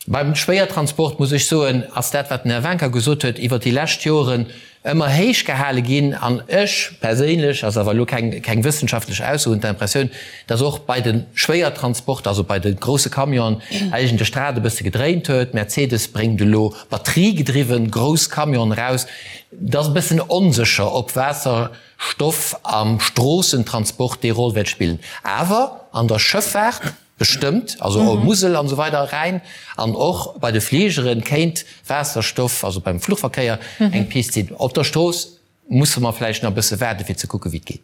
[SPEAKER 5] Beim Schwéiertransport, muss ech soen, ass dat, wat den Här Wincker gesot huet, iwwert déi lescht Joren ëmmer héich gehale ginn. An ech perséinlech, ass awer elo keng, keng wëssenschaftlech Ausso, hunn d'Impressioun, dass och bei de Schwéiertransporter, also bei de grousse Camionen, eigentlech d'Rad e bësse gedréint huet. Mercedes bréngt elo batteriegedriwwen grouss Camionen eraus. Et ass e bëssen onsécher, ob Waasserstoff am Stroossentransport déi Roll wäert spillen. Awer an der Schëffaart, Bestëmmt, also och Musel an esou weider, Rhäin, an och bei de Fligeren kéint Waasserstoff, also beim Fluchverkéier, eng Pist sinn. Op der Strooss musse mer vläicht nach e bësse waarde fir ze kucke wéi et geet.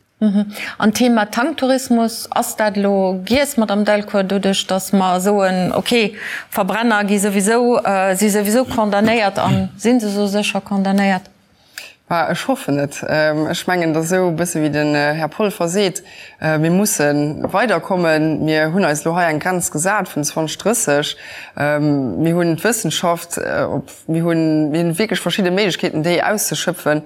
[SPEAKER 2] An d'Thema Tanktourismus, ass dat elo giess, Madame Delcourt, doduerch datt mer soen, okay, Verbrenner gi souwisou, si souwisou condamnéiert a si se sou sécher condamnéiert?
[SPEAKER 3] Bah, ech hoffen et. Ech mengen, et ass esou e bësse wéi den Här Polfer seet, Mir musse weiderkommen. Mir hunn eis elo hei eng Grenz gesat vun 2030. Mir hunn d'Wëssenschaft, mir hunn, mir hunn wierklech verschidde Méiglechkeeten, déi auszeschöpfen,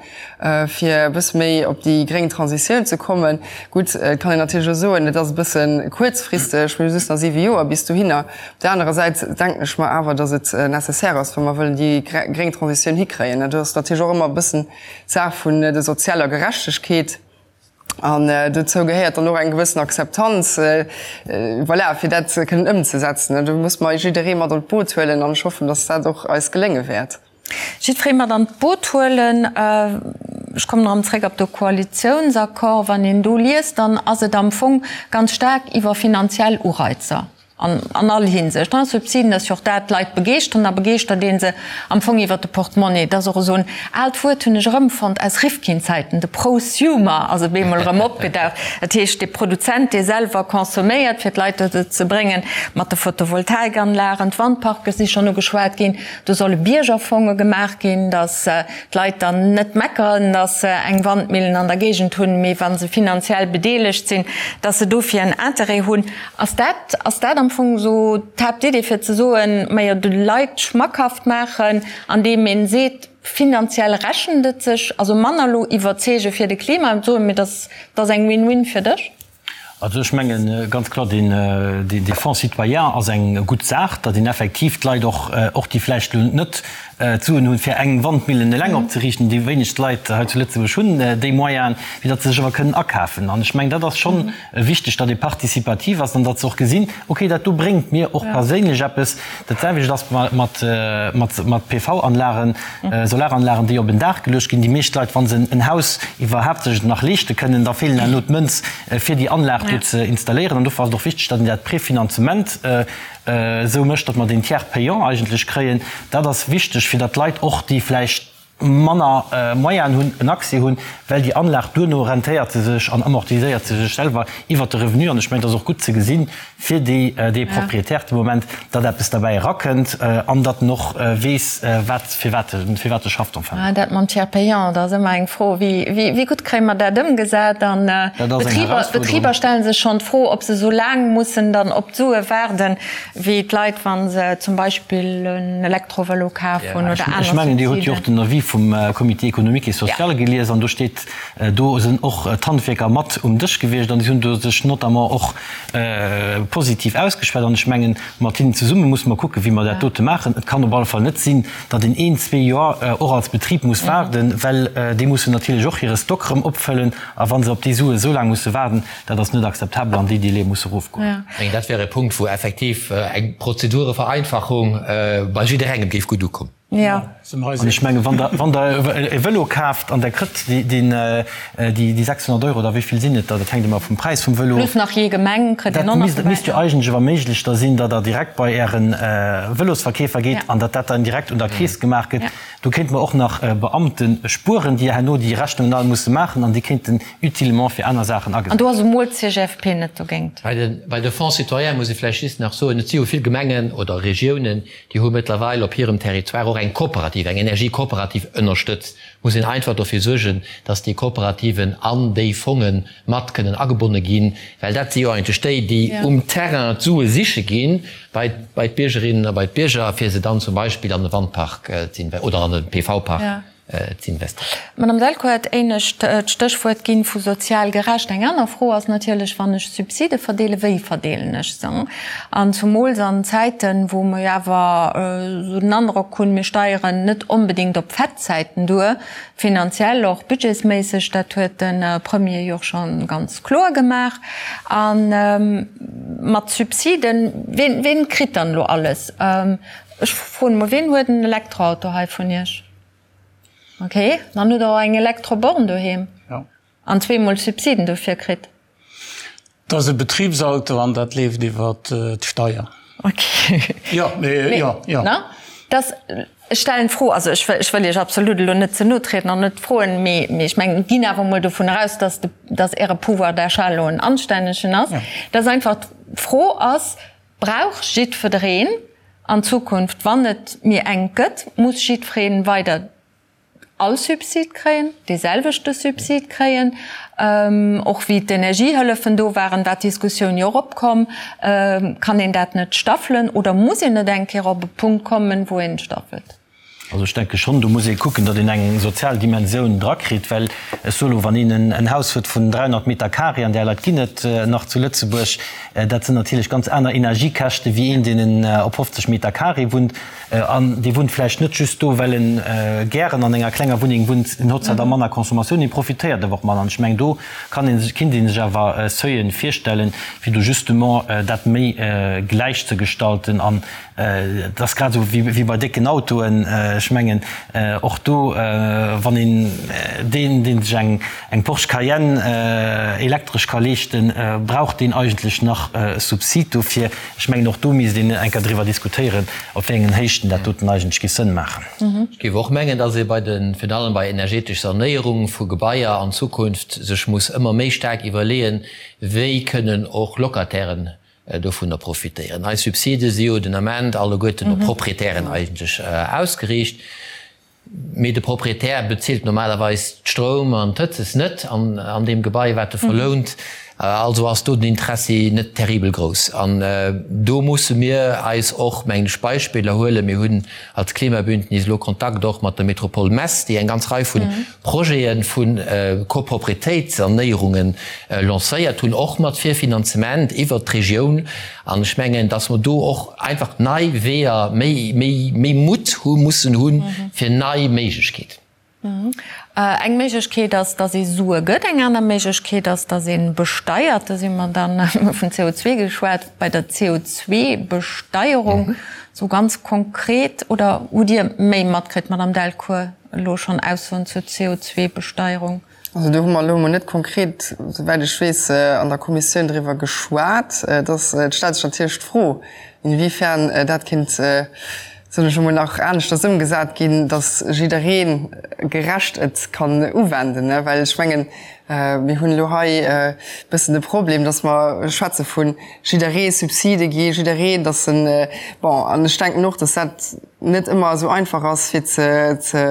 [SPEAKER 3] fir e bësse méi op déi gréng Transitioun ze kommen. Gutt, et kann een natierlech och soen, et ass e bësse kuerzfristeg, mir hu just nach siwe Joer bis dohinner. Op där anerer Säit denken ech mer awer, datt et nécessaire ass, wa mer wëllen déi gréng Transitioun hikréien. Dat ass natierlech och ëmmer e bëssen d'Saach vun der sozialer Gerechtegkeet. An dozou gehéiert dann och eng gewëssen Akzeptanz, voilà, fir dat kënnen ëmzesetzen. Do muss mer jidderee mat an d'Boot huelen an ech hoffen, datt dat och eis gelénge wäert.
[SPEAKER 2] Jiddweree mat an d'Boot huelen. Ech kommen erëm zréck op de Koalitiounsaccord. Wann een do liest, dann ass et am Fong ganz staark iwwer finanziell Ureizer an all Hinsicht, Subsiden, dass jo och dat d'Leit begeeschteren a begeeschtert ee se am Fong iwwer de Portemonnaie. Et ass och esou en aalt Wuert, hunn ech erëmfonnt aus Rifkin-Zäiten, de Prosumer ass op eemol erëm opgedaucht. Dat heescht, de Produzent, dee selwer consomméiert, fir d'Leit dozou ze bréngen, mat de Photovoltaikanlagen, d'Wandparke si schonn ugeschwat ginn, Do solle Biergerfonge gemaach ginn, datt d'Leit dann net meckeren, datt se eng Wandmillen an der Géigend hunn, mee wa se finanziell bedeelegt sinn, datt se dofir en Interêt hunn. Ass dat, ass dat am Fong esou d'Haaptidee fir ze soen, majo de Leit schmackhaft maachen, andeem een seet, finanziell rechent et sech, also manner elo iwwerzeege fir de Klima, soen, mee dat ass eng Win-win fir dech?
[SPEAKER 4] Also ech mengen ganz kloer, deen dee Fonds citoyen ass eng gutt Saach, datt een effektiv d'Leit och, och déi vläicht elo net d'Suen hunn, fir eng Wandmillen eleng opzeriichten, déi wéinegst Leit hei zu Lëtzebuerg hunn déi Moyenen, fir datt se sech awer kënnen akafen. An ech mengen, dat ass schonn wichteg, datt ee participativ ass an datt se och gesinn, okay, dat do bréngt mir och perséinlech eppes. Dat selwecht ass mat PV-Anlagen, Solaranlagen, déi op en Daach geluecht ginn. Déi meescht Leit, wa se en Haus iwwerhaapt sech et nach leeschte kënnen, da feelen herno d'Mënz, fir déi Anlag do ze installéieren. An dofir ass et och wichteg, datt een dat Prefinanzement esou mécht, datt mer deen Tiers payant eigentlech kréien. Dat ass wichteg, fir datt d'Leit och, déi vläicht manner Moyenen hunn, en Accès hunn, well déi Anlag duerno rentéiert se sech an amortiséiert se sech selwer iwwert de Revenu. An ech mengen, et ass och gutt ze gesinn fir déi, dee Propriétaire de Moment, datt eppes derbäi erakënnt an datt en och weess, wat, fir wat e, fir wat e schafft enfin.
[SPEAKER 2] Dat mam Tiers payant, dat ass ëmmer eng Fro, wéi, wéi, wéi gutt kréie mer dat ëmgesat? An d'Betriber, d'Betriber stelle sech schonn d'Fro, ob se esou laang mussen dann op d'Sue waarden, Wéi d'Leit, wa se zum Beispill en Elektrovëlo kaf hunn oder aner
[SPEAKER 4] Ech mengen, Dir hutt jo och den Avis vum Comité économique et social gelies an do steet, do sinn och d'Handwierker mat um Dësch gewiescht an déi hunn do sech notamment och positiv ausgeschwat. An ech mengen, mat hinnen zesumme musse mer kucken, wéi mer dat dote maachen. Et kann op alle Fall net sinn, datt een een, zwee Joer och als Betrib muss waarden, well déi mussen natierlech och hire Stock erëm opfëllen. A wa se op déi Sue esou laang musse waarden, Dat ass net akzeptabel an déi Délaië musse erofgoen.
[SPEAKER 5] Ech mengen, dat wär e Punkt, wou effektiv eng Prozedurevereinfachung bei jidderengem géif gutt ukommen.
[SPEAKER 4] An ech mengen, wann Der, wann Der e Vëlo kaaft an Der kritt déi 600 Euro, oder wéi vill sinn et der, dat hänkt ëmmer vum Präis vum Vëlo of.
[SPEAKER 2] Plus nach jee Gemeng kritt een och nach
[SPEAKER 4] Dat misst jo eigentlech awer méiglech da sinn, datt Der direkt bei Äre Vëlosverkeefer geet an datt dat dann direkt un der Keess gemaach gëtt. Do kéinte mer och nach Beamte spueren, déi herno déi Rechnungen all musse maachen an déi kéinten utilement fir aner Saachen
[SPEAKER 2] agesat. An do ass emol d'CGFP net dogéint.
[SPEAKER 5] Bei de Fonds citoyens muss ee vläicht just nach soen, et si jo vill Gemengen oder Regiounen, déi hu mëttlerweil op hirem Territoire och eng Kooperativ, eng Energiekooperativ ënnerstëtzt. Muss een einfach dofir suergen, dass déi Kooperativen an déi Fonge mat kënnen agebonne ginn, well dat si jo eigentlech déi, déi um Terrain d'Sue siche ginn bei d'Biergerinnen a bei d'Bierger, fir se dann zum Beispill an e Wandpark ze oder an e PV-Park ze investéieren.
[SPEAKER 2] D'Madame Delcourt huet éinescht d'Stéchwuert ginn vu sozial gerecht. Eng aner Fro ass natierlech, wann ech Subside verdeelen, wéi verdeelen ech se? An zumools an Zäiten, wou mer jo awer esou den Androck hunn, mir steieren net onbedéngt op Fettzäiten duer, finanziell och budgetsméisseg, dat huet de Premier jo och scho ganz kloer gemaach. A mat Subsiden, ween, ween kritt dann elo alles? Ech froen emol, ween huet en Elektroauto hei vun Iech? Ok, dann hutt Der och eng Elektroborn doheem an zweemol Subsiden dofir kritt.
[SPEAKER 6] Dat ass e Betribsauto an dat leeft iwwer d'Steier.
[SPEAKER 2] Ok. Jo, mee, jo, jo. Ne? Dass, ech stellen d'Fro, also ech wëll, ech wëll Iech absolut elo net ze no trieden an net froen, mee, mee ech mengen, ginn awer emol dovun aus, dass de, dass Äre Pouvoir d'achat elo en anstännegen ass, dass einfach d'Fro ass, Brauch jiddwereen an Zukunft, wann et méi enk gëtt, muss jiddweree weider all Subsid kréien, dee selwechte Subsid kréien? Och wéi d'Energiehëllefen do waren, war d'Diskussioun jo och opkomm, Kann een dat net staffelen oder muss een net eng Kéier op e Punkt kommen, wou een staffelt?
[SPEAKER 4] Also ech denke schonn, do muss ee kucken, datt een eng sozial Dimensioun drakritt, well ech soe lo, wann een en Haus huet vun 300 Meter carré, an där Leit ginn et nach zu Lëtzebuerg, dat sinn natierlech ganz aner Energiekäschte wéi een, deen op 50 Meter carré wunnt. An dee wunnt vläicht net just do, well en gären an enger klenger Wunneng wunnt, en huet zwar da manner Consommatioun, mee profitéiert awer och manner. An ech mengen, do kann ee sech, kinnt ee sech awer Seuilen virstellen, fir do justement dat méi gläich ze gestalten. An Et ass grad esou wéi bei décken Autoen. Ech mengen, och do, wann een deen, dee sech eng Porsche Cayenne elektresch ka leeschten, brauch deen eigentlech nach e Subsid dofir? Ech mengen, och do misst een eng Kéier driwwer diskutéieren, op wéi engen Héichten dat doten eigentlech géif Sënn maachen.
[SPEAKER 5] Ech géif och mengen, dass ee bei de, virun allem bei energetesch Sanéierung vu Gebaier an Zukunft sech muss ëmmer méi staark iwwerleeën, wéi kënnen och Locatairen dovunner profitéieren. Eis Subside si jo den Ament alleguerten op Proprietären eigentlech ausgeriicht, mee de Proprietär bezilt normalerweis d'Stroum an d'Hëtzes net an deem Gebai, wat e verlount. Also ass do den Interessi net terribel grouss. An do musse mir eis och, mengen ech, Beispiller huelen. Mir hunn als Klimabündnis elo Kontakt och mat der Métropole Metz, déi eng ganz Rei vu Projete vu Koproprietéitssanéierunge lancéiert hunn, och mat Virfinanzement iwwert d'Regioun. An ech mengen, dass mer do och einfach nei Weeër, méi, méi, méi Mutt hu mussen hunn, fir nei Méiglechkeeten.
[SPEAKER 2] Eng Méiglechkeet ass, dass ee Sue gëtt. Eng aner Méiglechkeet ass, dass ee besteiert. Do si mer dann, mir hu vun CO2 geschwat, bei der CO2-Besteierung. Esou ganz konkret, oder hutt Dir méi matkritt, Madamm Delcourt, elo schonn Aussoen zur CO2-Besteierung?
[SPEAKER 3] Also do hu mer elo emol net konkret, souwäit ech weess, an der Kommissioun driwwer geschwat. Et ass, et stellt sech natierlech d'Fro, inwiefern dat kéint, soen ech emol, nach aneschters ëmgesat ginn, datt jidderee gerecht et kann uwenden. Well ech mengen, mir hunn elo hei e bëssen de Problem, datt mer schwätze vu jidderee Subside gi jiddereen, datt en, bon, an ech denken och, datt dat, net ëmmer esou einfach ass fir ze ze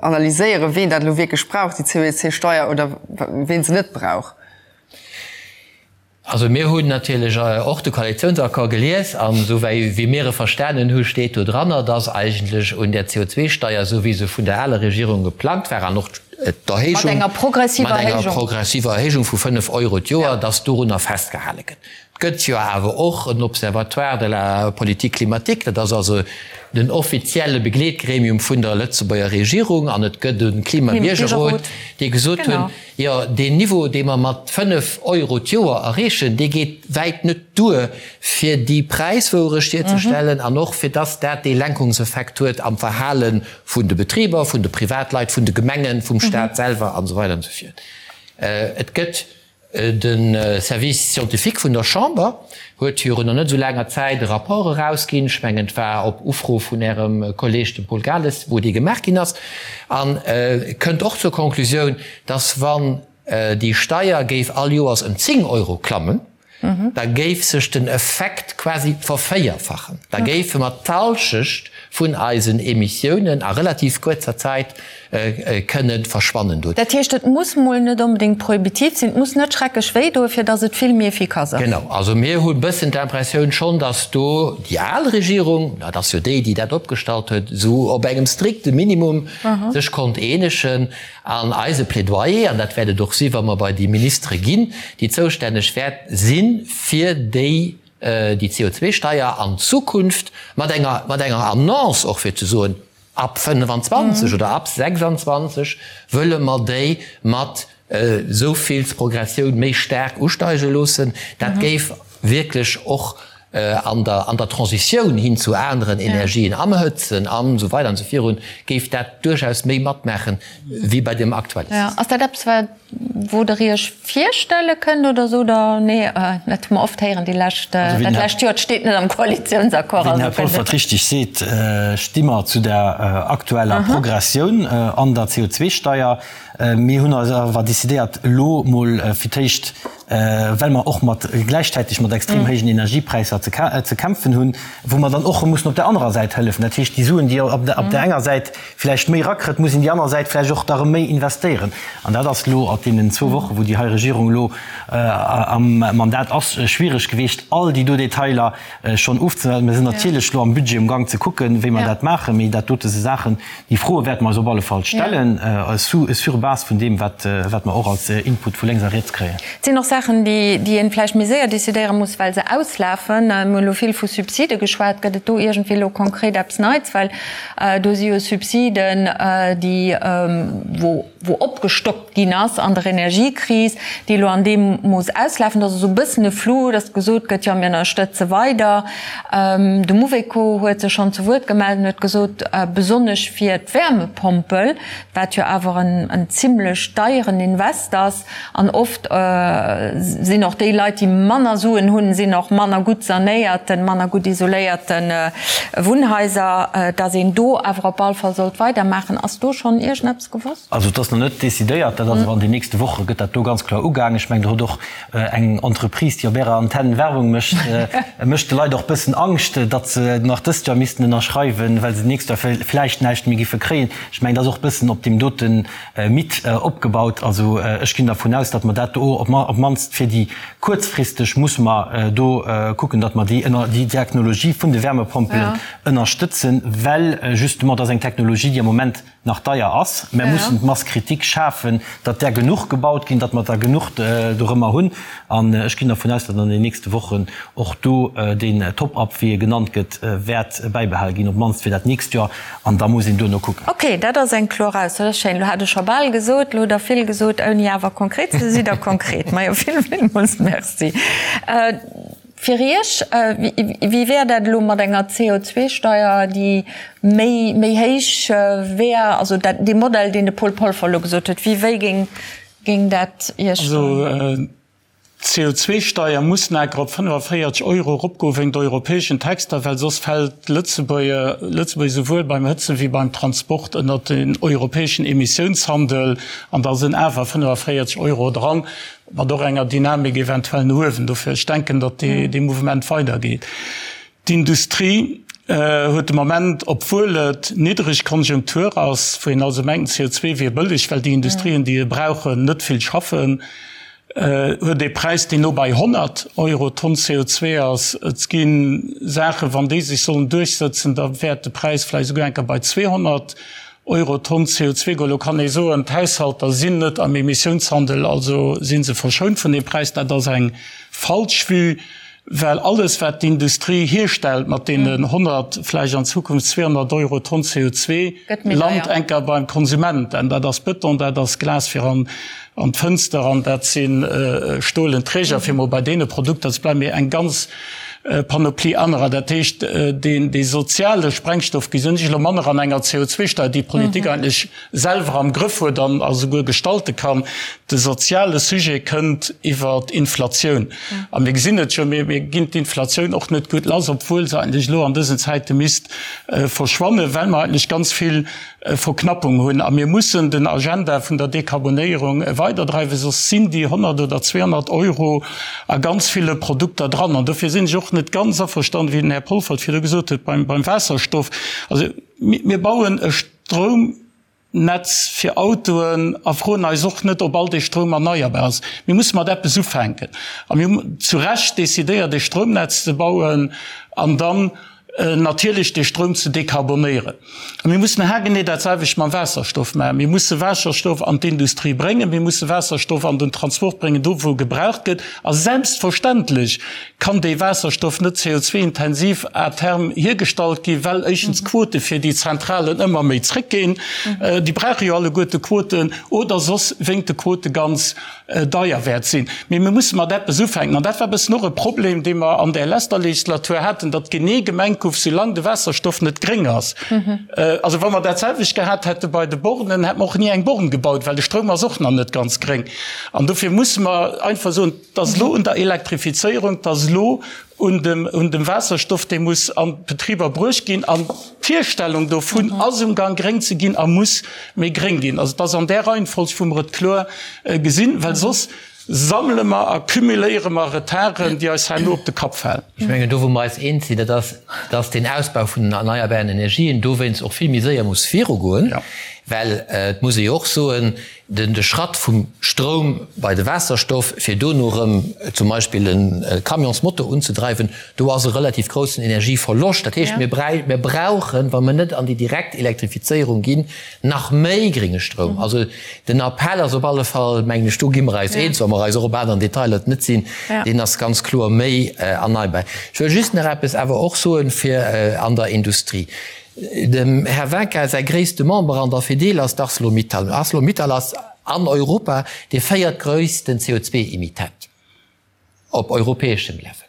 [SPEAKER 3] analyséieren, ween dat elo wierklech brauch, déi COEC-Steier, oder ween se net brauch.
[SPEAKER 5] Also mir hunn natierlech och de Koalitiounsaccord gelies an esou wéi wéi mir e verstanen hu steet do dranner, dass eigentlech un där CO2-Steier, esou wéi se vun der aler Regierung geplangt war an och d'Erhéijung, mat enger progressiver Erhéijung vu 5 Euro d'Joer, dass dorunner festgehale gëtt. Et gëtt jo awer och en Observatoire de la politique climatique, dat ass also den offizielle Begleetgremium vun der Lëtzebuerger Regierung, an et gëtt e Klimabiergerrot, déi gesot hunn, jo deen Niveau, dee mer mat 5 Euro d'Joer erreechen, dee geet wäit net duer, fir déi Präiswouerecht hierzestellen an och fir dass dat dee Lenkungseffekt huet am Verhale vun de Betriber, vun de Privatleit, vun de Gemengen, vum Stat selwer an esou weider an esou fort. Et gëtt De Service scientifique vun der Chamber huet virun nach net esou laanger Zäit e Rapport erausginn, ech mengen et war op Ufro vun Ärem Kolleeg, dem Paul Gales, wou dee gemaach ginn ass, a kënnt och zur Konklusioun, dass wann déi Steier géif all Joers ëm 10 Euro klammen, da géif sech den Effekt quasi vervéierfachen. Da géife mer d'Halschecht vun eisen Emissiounen a relativ kuerzer Zäit kënne verschwannen
[SPEAKER 2] doen. Dat heescht, et muss mol net onbedéngt prohibitiv sinn, et muss net schrecklech wéi doen, fir datt et vill méi efficace
[SPEAKER 5] ass. Genau. Also mir hu bëssen d'Impressioun schonn, datt do déi al Regierung, dat ass jo déi, déi dat opgestallt huet, esou op engem strikte Minimum sech konnt eenegen. An eise Plädoyer, an dat wäert et och si wa mer bei déi Ministere ginn, déi zoustänneg wäert sinn, fir déi déi CO2-Steier an Zukunft mat enger mat enger Annonce och fir ze soen, Ab 25 oder ab 26 wëlle mer déi mat esou vill Progressioun méi staark usteige loossen. Dat géif wierklech och an der an der Transitioun hin zu aneren Energien, am Hëtzen an esou weider an esou virun, géif dat duerchaus méi matmaachen wéi bei deem aktuelle
[SPEAKER 2] System. Ass dat eppes, wat wou Der Iech virstelle kënnt oder sot Der, nee, dat hu mer oft héieren déi lescht, dat lescht Joer, et steet net am Koalitiounsaccord.
[SPEAKER 4] Wéi den Här Polfert richteg seet, sti mer zu der aktueller Progressioun an der CO2-Steier. Mir hunn eis awer decidéiert, elo mol fir d'éischt, well mer och mat gläichzäiteg mat extrem héijen Energiepräisser ze kämpfen hunn, wou mer dann och erëm mussen op där anerer Säit hëllefen. Dat heescht, déi Suen, déi op där enger Säit vläicht méi erakritt, muss een déi aner Säit vläicht och da erëm méi investéieren. An dat ass elo op deenen zwou Wochen, wou déi hei Regierung elo am Mandat ass, schwierig gewiescht, all déi do Detailer schonn ofzesetzen. Mir sinn natierlech elo am Budget um Gang ze kucken, wéi mer dat maachen, mee dat dote si Saachen, déi Froe wäerte mer eis op alle Fall stellen, sur base vun deem, wat mer och als Input vu lénks a riets kréien.
[SPEAKER 2] Et sinn och Saachen, déi een vläicht méi séier decidéiere muss, well se auslafen. Mir hunn elo vill vu Subside geschwat. Gëtt et do iergendwéi elo konkret eppes Neits? Well Do si jo Subsiden, déi, wou, wou opgestockt ginn ass an der Energiekris, déi elo an deem Mooss auslafen. Dat ass esou e bëssen e Flou, datt gesot gëtt, jo mir ënnerstëtze weider. De Mouveco huet sech schonn zu Wuert gemellt an huet gesot, besonnesch fir d'Wäermepompel, wat jo awer en, en zimlech deieren Invest ass, An oft sinn och déi Leit, déi manner Suen hunn, sinn och manner gutt sanéierten, manner gutt isoléierte Wunnhaiser, datt een do awer op all Fall sollt weidermaachen. Ass do schonn iergendeppes gewosst?
[SPEAKER 4] Also et ass nach net decidéiert, dat ass awer an den nächste Woche gëtt dat do ganz kloer ugaangen. Ech mengen, do huet och eng Entreprise, déi op Ärer Antenn Werbung mécht, mécht de Leit och e bëssen Angscht, datt se nach dëst Joer missten ënnerschreiwen, well se d'nächst Joer vläicht näischt méi giffe kréien. Ech mengen, dat ass och e bëssen op deem doten Mythe opgebaut. Also ech ginn dervun aus, datt mer dat do op d'mannst. d'mannst fir déi kuerzfristeg musse mer do kucken, datt mer déi déi Technologie vun de Wärmepompelen ënnerstëtzen, well justement dat ass eng Technologie, déi am Moment nach deier ass. Mer mussen d'Masse critique schafen, datt där genuch gebaut ginn, datt mer der genuch dorëmmer hunn. An ech ginn dervun aus, datt an den nächste Wochen och do deen Top-up, wéi e genannt gëtt, wäert bäibehale ginn, op d'mannst fir dat nächst Joer. An da muss een duerno kucken.
[SPEAKER 2] Ok, dat ass eng kloer Ausso, dat ass schéin. Elo hat ech scho bal gesot, elo hutt Der vill gesot, ouni awer konkret ze sinn. Sidd Der konkret? Majo, vill, villmools Merci. Fir Iech, wéi wär dat elo mat enger CO2-Steier, déi méi, méi héich wär? Also dat, dee Modell, deen de Paul Polfer elo gesot huet, wéi, wéi géing, géing dat Iech.
[SPEAKER 6] Also d'CO2-Steier muss enker op 45 Euro eropgoen, wéingt europäeschen Texter, well soss fält Lëtzebuerg, Lëtzebuerg esouwuel beim Hëtzen wéi beim Transport ënnert den europäeschen Emissiounshandel an da sinn awer 45 Euro dran. Mat och enger Dynamik eventuell no uewen. Dofir, ech denken, datt dee Mouvement weidergeet. D'Industrie huet de Moment, obwuel et niddreg Konjunktur ass, wou een also mengt, CO2 wier bëlleg, well déi Industrien, déi e brauchen, net vill schaffen, huet ee Präis, deen no bei 100 Euro d'Tonn CO2 ass. Et gi Saachen, wann déi sech sollen duerchsëtzen, da wäert de Präis vläicht esouguer eng Kéier bei 200 Euro d'Tonn CO2 goen. Elo kann ee soen, d'Haushalter sinn net am Emissiounshandel, also si se verschount vun deem Präis. Dat ass eng falsch Vue, well alles, wat d'Industrie hierstellt mat deenen 100, vläicht an Zukunft 200 Euro d'Tonn CO2, lant enker beim Konsument. An dat ass Bëton, dat ass Glas fir an d'Fënster an dat si stolen Träger, fir mol bei deene Produkter ze bleiwen, mee eng ganz Panoplie anerer. Dat heescht, deen dee soziale Sprengstoff gesinn ech elo manner an enger CO2-Steier, déi d'Politik eigentlech selwer am Grëff huet an a souguer gestalte kann. De soziale Sujet kënnt iwwer d'Inflatioun. A mir gesinn et jo, mir ginn d'Inflatioun och net gutt lass, obwuel se eigentlech elo an dësen Zäite misst verschwannen, well mer eigentlech ganz vill Verknappung hunn. A mir mussen den Agenda vun der Dekarbonéierung weiderdreiwen, soss sinn déi 100 oder 200 Euro a ganz ville Produkter dran. An dofir sinn ech och net ganz averstanen, wéi den Här Polfert virdu gesot huet, beim Waasserstoff. Also mir bauen e Stroumnetz fir Autoen a froen eis och net, ob all dee Stroum erneierbar ass. Mir musse mat eppes ufänken. A mir hunn zu Recht decidéiert, e Stroumnetz ze bauen an dann, natierlech dee Stroum ze dekarbonéieren. A mir mussen haargenee dat selwecht mam Waasserstoff maachen. Mir musse Waasserstoff an d'Industrie bréngen, mir musse Waasserstoff an den Transport bréngen, do wou e gebraucht gëtt. A selbstverständlech kann dee Waasserstoff net CO2-intensiv à terme hiergestallt ginn, well éischtens d'Quote fir déi Zentralen ëmmer méi zréckginn, déi brauche jo alleguerte Quoten, oder soss wéingt de Quote ganz deier wäert sinn. Mee mir musse mat eppes ufänken. An dat war e bëssen och e Problem, dee mer an där leschter Legislatur haten, datt genee gemengt gouf, soulaang de Waasserstoff net gréng ass. Also wa mer dat selwecht gehat hätte bei de Bornen, hätte mer och ni eng Born gebaut, well de Stroum ass och nach net ganz gréng. An dofir musse mer einfach soen, Et ass elo un der Elektrifizéierung, et ass elo un dem, un dem Waasserstoff, dee muss an d'Betriber bruecht ginn. An d'Hierstellung dovun ass um Gang, gréng ze ginn a muss méi gréng ginn. Also et ass an där Reihenfolg, wou mer et kloer gesinn, well soss sammele mer a cumuléiere mer Retarden, déi eis herno op de Kapp falen.
[SPEAKER 5] Ech mengen, do wou mer eis eens sinn, dat ass, dass deen Ausbau vun den erneierbaren Energien dowéinst och vill méi séier muss virugoen, well et muss ee jo och soen, De Schratt vum Stroum bei de Waasserstoff, fir dono erëm zum Beispill e Camionsmotor unzedreiwen, do ass e relativ groussen Energieverloscht. Dat heescht, mir brauchen, wa mir net an déi direkt Elektrifizéierung ginn, nach méi grénge Stroum. Also den Appell ass op alle Fall, mengen ech, do gi mer eis eens, wa mer eis och op aneren Detailer net sinn, deen ass ganz kloer méi erneierbar. Ech wëll just nach eppes awer och soen, fir an der Industrie. Dem Här Winkin säi gréisste Member an der Fedil ass d'Arcelor-Mittal. Arcelor-Mittal ass an Europa dee véiertgréissten CO2-Emittent op europäeschem Level.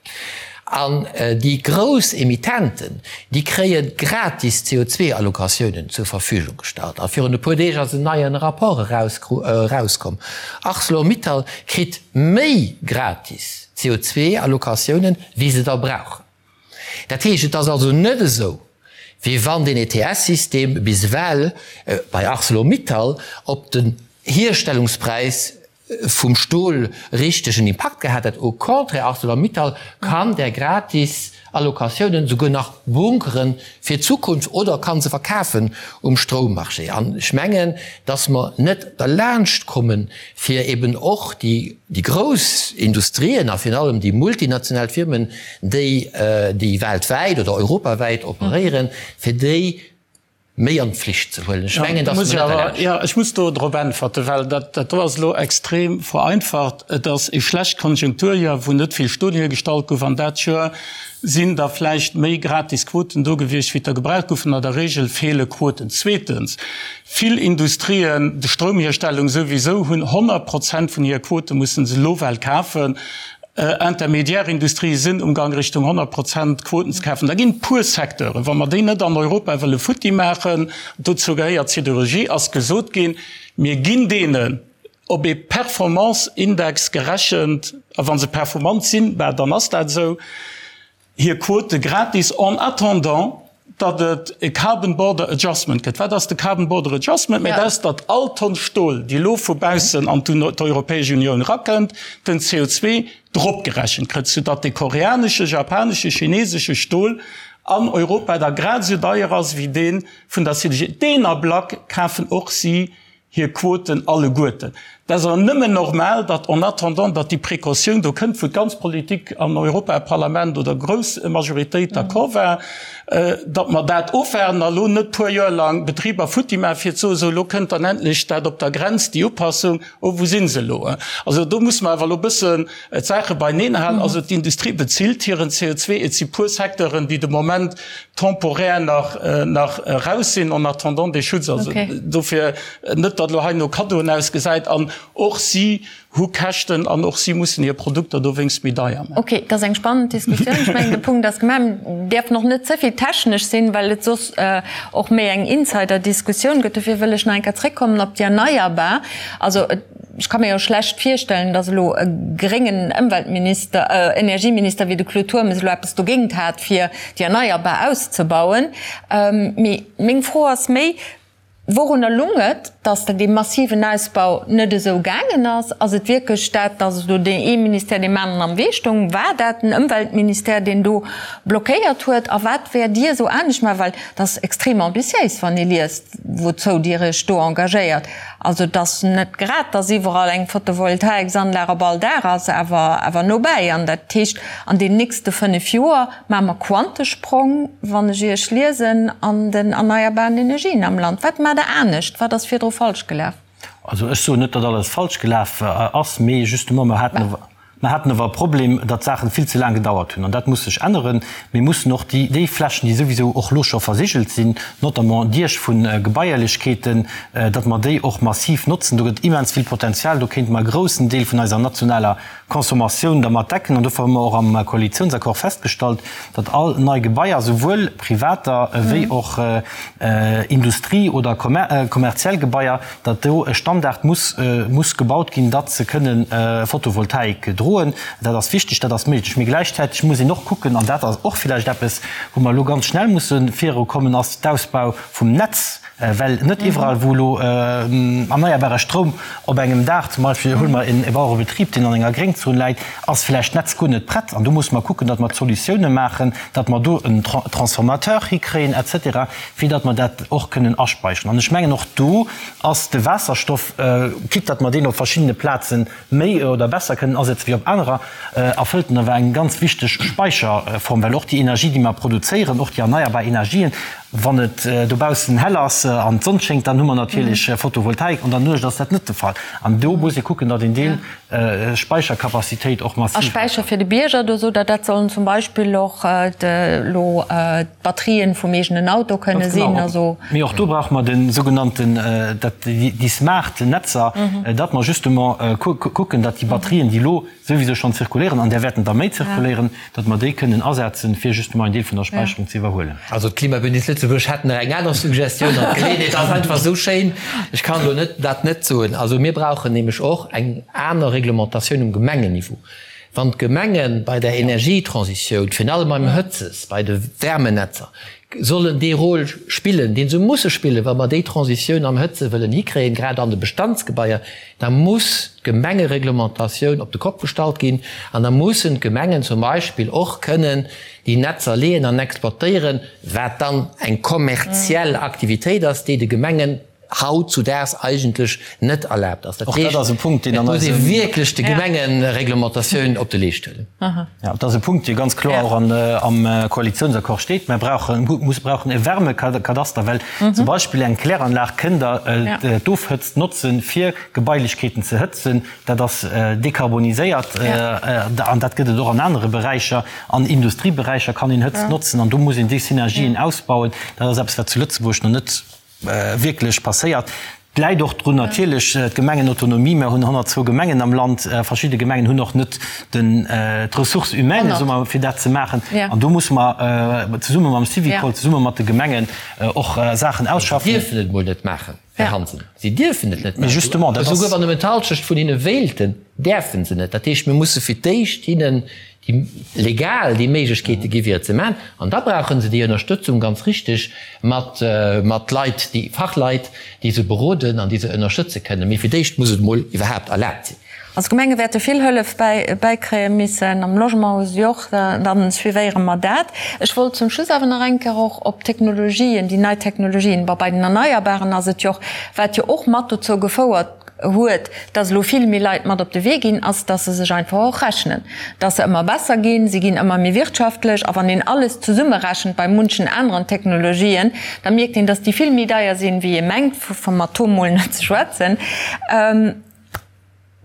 [SPEAKER 5] An déi grouss Emittenten, déi kréie gratis CO2-Allocatiounen zur Verfügung gestallt. A virun e puer Deeg ass en neie Rapport erauskomm, Arcelor-Mittal kritt méi gratis CO2-Allocatiounen, wéi se der brauchen. Dat heescht, et ass also net esou, wéi wann deen ETS-System bis ewell bei Arcelor-Mittal op den Hierstellungspräis. vum Stol richtegen Impakt gehat hätt. Au contraire, Arcelor-Mittal kann där gratis Allocatiounen souguer nach bunkere fir d'Zukunft oder kann se verkafen um Stroummarché. An ech mengen, dass mer net derlaanscht kommen, fir eben och déi grouss Industrien a virun allem déi multinational Firmen, déi weltwäit oder europawäit operéieren, fir déi méi an d'Pflicht ze huelen. Ech mengen, dass mer net derlaanscht.
[SPEAKER 6] Jo, ech muss do drop äntwerten, well dat do ass elo extrem vereinfacht. Et ass e schlecht Konjunkturjoer, wou net vill Stol hiergestallt gouf, an dat Joer sinn da vläicht méi gratis Quoten do gewiescht, wéi der gebraucht goufen. An der Regel feele Quoten. Zweetens, vill Industrien, de Stroumhierstellung souwisou, hunn 100 Prozent vun hir Quote mussen se elo well kafen. Intermédiaire-Industrie sinn um Gang Richtung 100 Prozent Quoten ze kafen. Da ginn et puer Secteuren, wa mer déi net an Europa wëlle futti maachen, dozou gehéiert d'Siderurgie, ass gesot ginn, mir ginn deenen op ee Performance-Index gerechent, a wa se performant sinn, bah dann ass dat esou, hir Quote gratis en attendant, datt et e Carbon Border Adjustment gëtt. Wat ass de Carbon Border Adjustment? Mä dat ass, datt all Tonn Stol, déi elo vu baussen an d'Europäesch Unioun erakënnt, den CO2 dropgerechent kritt, soudatt de koreanesche, japanesche, chinesesche Stol an Europa da grad esou deier ass wéi dee vun der CDG. Deen Ablack kafen och si hir Quoten alleguerten. Dat ass awer nëmmen normal, datt en attendant, datt déi Précautioun do kënnt, wou d'ganz Politik an Europaparlament oder grouss Majoritéit d'accord war, datt mer dat ofwaarden a lo net puer Joer lang Betriber futti maachen, fir ze soen, sou elo kënnt dann endlech dat op der Grenz, déi Upassung, oh wou si se elo? Also do musse mer awer elo e bëssen d'Saache beineen halen. Also d'Industrie bezilt hiren CO2. Et si puer Secteuren, déi de Moment temporaire nach nach eraus sinn en attendant dee Schutz. Also dofir net, datt elo hei no Kaddoen ausgesäit. An och si hu Käschten an och si mussen hir Produkter dowéinst méi deier maachen.
[SPEAKER 2] Okay, dat ass eng spannend Diskussioun. Ech mengen, de Punkt ass gemaach. Mir däerfen och net ze vill technesch sinn, well et soss och méi eng Insider-Diskussioun gëtt. Dofir wëll ech nach eng Kéier zréckkommen op déi Erneierbar. Also et. Ech ka mir jo schlecht virstellen, datt elo e gréngen Ëmweltminister, Energieminister wéi de Claude Turmes elo eppes dogéint hat, fir déi Erneierbar auszebauen. Mee meng Fro ass méi, Wourunner lung et, datt dee massiven Ausbau net esou gaangen ass? Ass et wierklech dat, datt elo deen ee Ministère deem aneren am Wee stoung? War dat den Ëmweltministère, deen do blockéiert huet? A wat wäert Dir esou anescht maachen? Well dat ass extrem ambitiéis, wann ee liest, wouzou Dir Iech do engagéiert. Also et ass net grad, dass iwwerall eng Photovoltaiksanlag op all Daach ass, awer awer nobäi. An dat heescht, an den nächste 5 Joer maache mer Quantesprong, wann ech Iech liesen, an den erneierbaren Energien am Land. Wat maacht Der anescht? Wat ass virdru falsch gelaf?
[SPEAKER 4] Also ech soen net, datt alles falsch gelaf ass, mee justement mer haten, Mer haten awer e Problem, datt d'Saachen vill ze laang gedauert hunn. An dat muss sech änneren. Mir mussen och déi, déi Flächen, déi souwisou och elo scho versigelt sinn, notamment Diech vu Gebaierlechkeeten, datt mer déi och massiv notzen. Do gëtt immens vill Potenzial. Do kéinte mer e groussen Deel vun eiser nationaler Consommatioun dermat decken. An dofir hu mer och am Koalitiounsaccord festgestallt, datt all nei Gebaier, souwuel privater wéi och Industrie oder kommerziell Gebaier, datt do e Standard muss muss gebaut ginn, datt se kënnen Photovoltaik droen. Dat ass wichteg, dat ass méiglech. Mee gläichzäiteg muss een och kucken, an dat ass och villäicht eppes, wou mer elo ganz schnell musse virukommen, ass d'Ausbau vum Netz, well net iwwerall, wou elo erneierbare Stroum op engem Daach, zum Beispill huele mer e Bauerebetrib, deen an enger Gréngzon läit, ass villäicht d'Netz guer net prett. An do musse mer kucken, datt mer Solutioune maachen, datt mer do en Transformateur hikréien et cetera, fir datt mer dat och kënnen aspeicheren. An ech mengen, och do ass de Waasserstoff, quitte datt mer deen op verschiddene Plaze méi oder besser kënnen asetze wéi op anerer, erfëllt en awer eng ganz wichteg Speicherform, well och déi Energie, déi mer produzéieren, och déi erneierbar Energien, wann et dobaussen hell ass an d'Sonn schéngt, dann hu mer natierlech Photovoltaik, an der Nuecht ass dat net de Fall. An do muss ee kucken, datt een deen Speichercapacitéit och massiv.
[SPEAKER 2] A Späicher fir de Bierger, do sot Der, dat sollen zum Beispill och elo d'Batterien vum eegenen Auto kënne sinn. Also.
[SPEAKER 4] Mee och do brauche mer de sougenannten, dat, déi smart Netzer, datt mer justement kucken, datt déi Batterien, déi elo souwisou schonn zirkuléieren, an där wäerten der méi zirkuléieren, datt mer déi kënnen asetzen, fir justement en Deel vun der Späicherung ze iwwerhuelen.
[SPEAKER 5] Also d'Klimabündnis Lëtzebuerg hätt nach eng aner Suggestioun an d'Geleeënheet ass einfach esou schéin, ech kann elo net dat net soen. Also mir brauchen nämlech och eng aner Reglementatioun um Gemengenniveau. Wann d'Gemenge bei der Energietransitioun, virun allem beim Hëtzes, bei de Wärmenetzer. sollen dee Rôle spillen, dee se musse spillen, wa mer déi Transitioun am Hëtze wëllen hikréien, grad an de Bestandsgebaier, da muss d'Gemengereglementatioun op de Kopp gestallt ginn an da mussen d'Gemengen zum Beispill och kënnen déi Netzer leeën an exploitéieren, wat dann eng kommerziell Aktivitéit ass, déi de Gemengen hautzudaags eigentlech net erlaabt ass. Dat
[SPEAKER 4] heescht,
[SPEAKER 5] et muss ee wierklech de Gemengereglementatioun op de Leescht huelen.
[SPEAKER 4] Jo, dat ass e Punkt, dee ganz kloer och am Koalitionsaccord steet. Mer brauchen, brauchen e Wärmekadaster, well zum Beispill eng Kläranlag kënnt Der d'Ofhëtzt notzen, fir Gebailechkeeten ze hëtzen. Dat ass dekarboniséiert an dat gëtt et och an anere Beräicher. An Industrieberäicher kann een Hëtzt notzen an do muss een déi Synergien ausbauen. Dat ass eppes, wat zu Lëtzebuerg nach net wierklech passéiert. Et läit och drun natierlech d'Gemengenautonomie. Mer hunn 102 Gemengen am Land. Verschidde Gemengen hunn och net den d'Ressources humaines, soe mer, fir dat ze maachen. An do musse mer zesumme mam Syvicol, zesumme mat de Gemengen och Saachen ausschaffen.
[SPEAKER 5] Si dierfen et emol net maachen, Här Hansen. Si dierfen et net
[SPEAKER 4] maachen. Justement,
[SPEAKER 5] dat ass. Esouguer wann nëmmen d'Halschecht vun hinne wéilten, däerfe se net. Dat heescht, mir musse fir d'éischt hinnen déi legal déi Méiglechkeete gi fir et ze maachen, an da brauche se déi Ënnerstëtzung, ganz richtig, mat mat Leit, déi Fachleit, déi se beroden an déi se ënnerstëtze kënnen. Mee fir d'éischt muss et emol iwwerhaapt erlaabt sinn.
[SPEAKER 2] Also d'Gemenge wäerte vill Hëllef bäi bäikréie missen, am Logement hu se och, da suivéiere mer dat. Ech wollt zum Schluss awer nach eng Kéier och op d'Technologien, déi nei Technologien, bon bei den Erneierbaren ass et jo och, wat jo och mat dozou gefouert huet, dass elo vill méi Leit mat op de Wee ginn, ass, dass se sech einfach och rechnen, dass se ëmmer besser ginn, se ginn ëmmer méi wirtschaftlech. A wann een alles zesummerechent bei munchen aneren Technologien, da mierkt een, dass déi vill méi deier sinn, wéi ee mengt, vum Atom mol net ze schwätzen.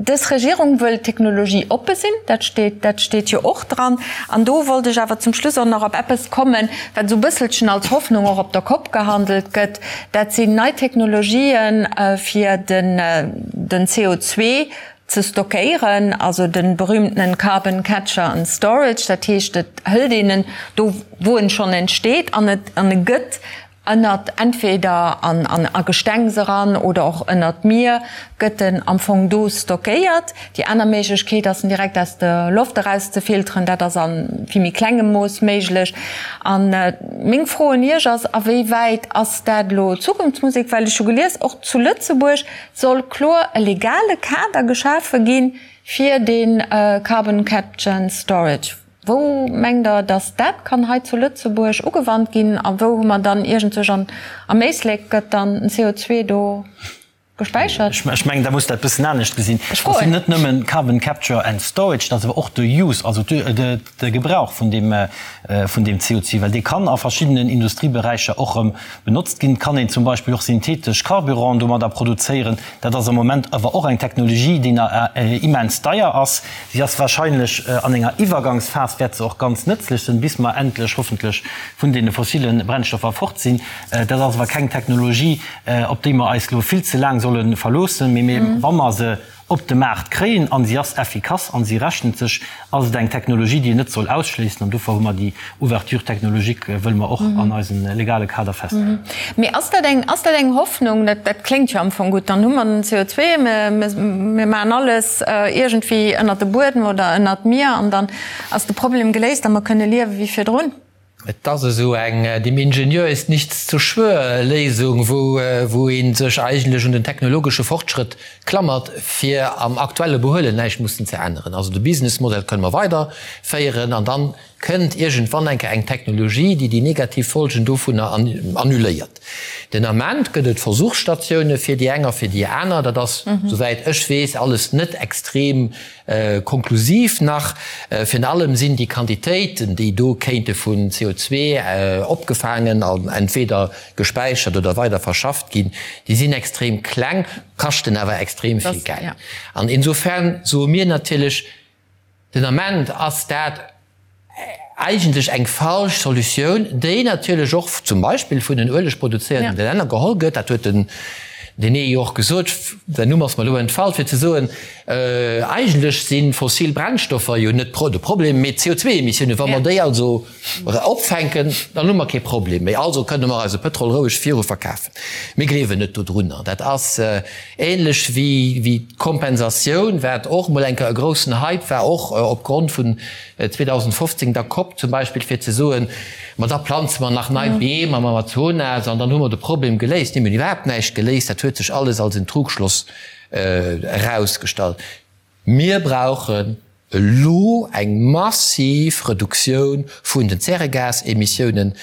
[SPEAKER 2] Dës Regierung wëll technologieoppe sinn, dat steet, dat steet jo och dran. An do wollt ech awer zum Schluss och nach op eppes kommen, wat esou e bësselchen als Hoffnung och op der Kopp gehandelt gëtt, Dat sinn nei Technologien, fir den CO2 ze stockéieren, also de berühmtenen Carbon Catcher and Storage. Dat heescht, et hëlt een en do, wou en schonn entsteet, an et an e gëtt ënnert, entweder an a Gestengs eran oder och ënnert d'Mier gëtt en am Fong do stockéiert. Déi aner Méiglechkeet ass en direkt aus der Loft eraus ze filteren. Dat ass a vill méi klengem Mooss méiglech. A meng Fro un Iech ass, A wéi wäit ass dat elo Zukunftsmusek? Well ech hu gelies, och zu Lëtzebuerg soll kloer e legale Kader geschafe gi fir dee Carbon Capture and Storage. Wou mengt Der, datt dat kann hei zu Lëtzebuerg ugewannt ginn? A wou hu mer dann iergendwech am Éislek gëtt dann den CO2 do Gespäichert?
[SPEAKER 4] Ech mengen, da muss dat e bëssen anescht gesinn. Dat sinn net nëmmen Carbon Capture and Storage, dat ass awer och de Use, also de Gebrauch vun deem, vun deem CO2, well dee kann a verschiddenen Industrieberäicher och erëm benotzt ginn. Et kann een zum Beispill och synthetesch Carburanten domadder produzéieren. Dat ass am Moment awer och eng Technologie, déi nach immens deier ass. Si ass wahrscheinlech an enger Iwwergangsphas wäert se och ganz nëtzlech sinn, bis mer endlech hoffentlech vun deene fossile Brennstoffer fort sinn. Dat ass awer keng Technologie, op déi mer eis elo vill ze laang solle verloossen, mee mir, wa mer se op de Maart kréien a si ass effikass a si rechent sech, ass et eng Technologie, déi een net soll ausschléissen. An dofir hu mer déi Ouverture technologique, wëlle mer och an eisem legale Kader festhalen.
[SPEAKER 2] Mee ass dat eng, ass dat eng Hoffnung? Dat, dat kléngt jo am Fong gutt. Dann hu mer den CO2, mir, mir maachen alles iergendwéi ënnert de Buedem oder ënnert d'Mier an dann ass de Problem geléist a mer kënne liewe wéi virdrun.
[SPEAKER 5] Et ass esou eng dem Ingenieur ist nichts zu schwör Léisung, wou wou ee sech eigentlech un den technologesche Fortschrëtt klammert, fir am aktuelle Behuelen näischt mussen ze änneren. Also de Businessmodell kënne mer weiderféieren an dann kënnt iergendwann eng Kéier eng Technologie, déi déi negativ Folgen dovunner annuléiert. Den Ament gëtt et Versuchsstatioune fir déi eng a fir déi aner. Dat ass, souwäit ech weess, alles net extrem Konklusiv nach, Virun allem sinn déi Quantitéiten, déi do kéinte vun CO2 opgefaangen an entweder gespäichert oder weider verschafft ginn, déi sinn extrem kleng, kaschten awer extrem vill Geld. An insofern soe mir natierlech, den Ament ass dat eigentlech eng falsch Solutioun, déi natierlech och zum Beispill vun den uelegproduzéierende Länner geholl gëtt. Dat huet den. Deen ee jo och gesot, säin Numm ass mer elo entfall, fir ze soen, eigentlech si fossil Brennstoffer jo net de Problem, mee d'CO2-Emissiounen. Wa mer déi also opfänken, dann hu mer kee Problem méi. Also kënne mer eise Pëtrol roueg viru verkafen. Mir gleewen net dodrunner. Dat ass ähnlech wéi d'Kompensatioun, wat och emol eng Kéier e groussen Hype war, och opgrond vun 2015 der Cop zum Beispill, fir ze soen, Ma da planze mer nach nei Beem am Amazonas an dann hu mer de Problem geléist. Nee, mir hunn iwwerhaapt näischt geléist. Dat huet sech alles als en Trugschloss erausgestallt. Mir brauchen elo eng massiv Reduktioun vun den Zäregasemissiounen.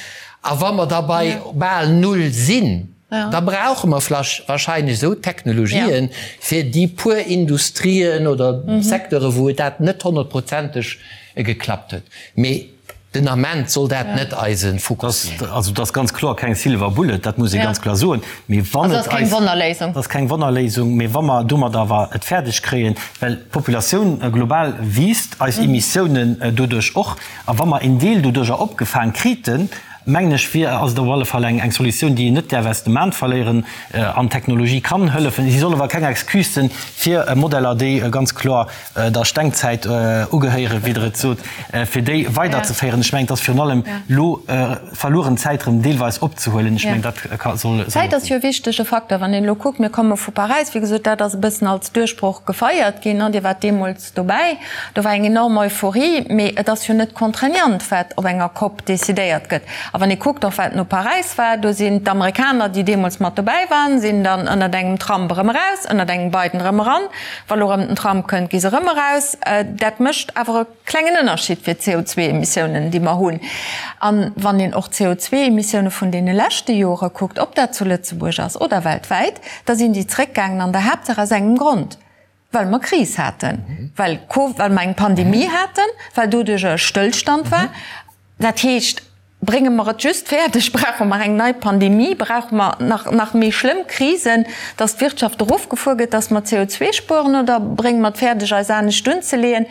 [SPEAKER 5] A wa mer da bei bal null sinn, da brauche mer wahrscheinlech esou Technologien, fir déi puer Industrien oder Secteure wou et dat net honnertprozenteg geklappt huet. Mee Den Ament soll dat net eise Fokus
[SPEAKER 4] sinn. Also et ass ganz kloer keng Silver Bullet, dat muss ee ganz kloer soen. Mee wann et eis. Also ass keng
[SPEAKER 2] Wonnerléisung.
[SPEAKER 4] Ass keng Wonnerléisung, mee wa mer domat awer et fäerdeg kréien, well d'Populatioun global wiisst, eis Emissiounen doduerch och, a wa mer een Deel doduercher opgefaang kriten, mengen ech, wier, ass et op alle Fall eng Solutioun, déi een net däerf aus dem An verléieren. An d'Technologie kann hëllefen. Si soll awer keng Excuse sinn fir Modeller, déi ganz kloer der Stengzäit ugehéieren, wéi Der et sot, fir déi weiderzeféieren. Ech mengen, et ass virun allem elo verlueren Zäit erëm deelweis opzehuelen. Ech mengen, dat ka
[SPEAKER 2] soll. Zäit ass jo e wichtege Facteur. Wann een elo kuckt, mir komme vu Paräis, wéi gesot, dat ass e bëssen als Duerchbroch gefeiert ginn. Dir waart deemools dobäi, do war eng enorm Euphorie. Mee et ass jo net contraignant, wat op enger Cop decidéiert gëtt. A wann ee kuckt och, wat no Paräis war, do sinn d'Amerikaner, déi deemools mat dobäi waren, sinn dann ënnert engem Trump erëm eraus, ënnert engem Biden erëm eran. Wa lo erëm den Trump kënnt, gi se erëm eraus. Dat mécht awer e klengen Ënnerscheed fir d'CO2-Emissiounen, déi mer hunn. A wann een och d'CO2-Emissioune vun deene leschte Jore kuckt, ob dat zu Lëtzebuerg ass oder weltwäit, da sinn déi zréckgaangen an der Haaptsaach aus engem Grond, well mer Kris haten, well well mer eng Pandemie haten, well doduercher e Stëllstand war. Dat heescht, brénge mer et just fäerdeg, brauche mer eng nei Pandemie, brauche mer nach, nach méi schlëmm Krisen, dass d'Wirtschaft erofgefuer gëtt, dass mer CO2 spueren, oder brénge mer et fäerdeg, eis anescht unzeleeën?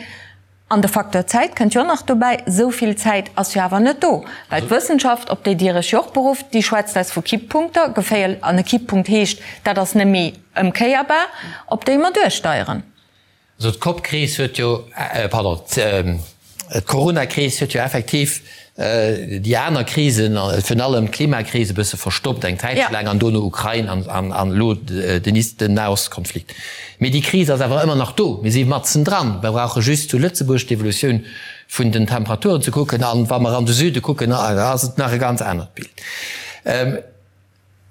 [SPEAKER 2] An de Facteur Zäit kënnt jo och nach dobäi. Esou vill Zäit ass jo awer net do, well d'Wëssenschaft, op déi Dir Iech jo och berufft, déi schwätzt eis vu Kipppunkter, geféier, an e Kipppunkt heescht, dat ass net méi ëmkéierbar, op déi mer duersteieren.
[SPEAKER 5] Also d'Cop-Kris huet jo, pardon, d'Corona-Kris huet jo effektiv déi aner Krisen, virun allem d'Klimakris e bësse verstoppt eng Zäitche laang an dono Ukrain an elo den Nahostkonflikt. Mee déi Kris ass awer ëmmer nach do. Mir si matzen dran. Mir brauche just zu Lëtzebuerg d'Evolutioun vun den Temperaturen ze kucken an wa mer an de Süde kucken, ass et nach e ganz anert Bild.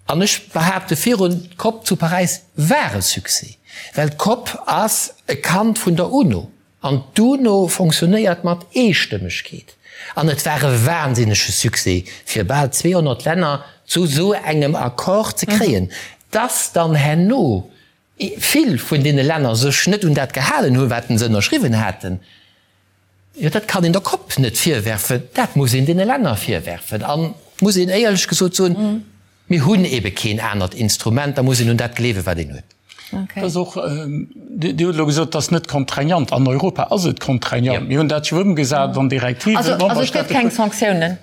[SPEAKER 5] An ech behaapte virun, d'Cop zu Paräis war e Succès, well d'Cop ass e Kand vun der UNO an d'UNO fonctionnéiert mat Eestëmmegkeet. An et war e wahnsinnege Succès, fir bal 200 Länner zu esou engem Accord ze kréien. Dass dann herno vill vun deene Länner sech net un dat gehalen hunn, wat se ënnerschriwwen haten, Jo, dat kann een der Cop net virwerfen, dat muss een deene Länner virwerfen. An muss een éierlech gesot soen, mir hunn ebe keen anert Instrument, da muss een un dat gleewen, wat een huet.
[SPEAKER 6] Dat ass och, Dir hutt elo gesot, et ass net contraignant. An Europa ass et contraignant. Mir hunn dat jo ëmgesat an Direktiven.
[SPEAKER 2] Also et gëtt keng Sanktiounen?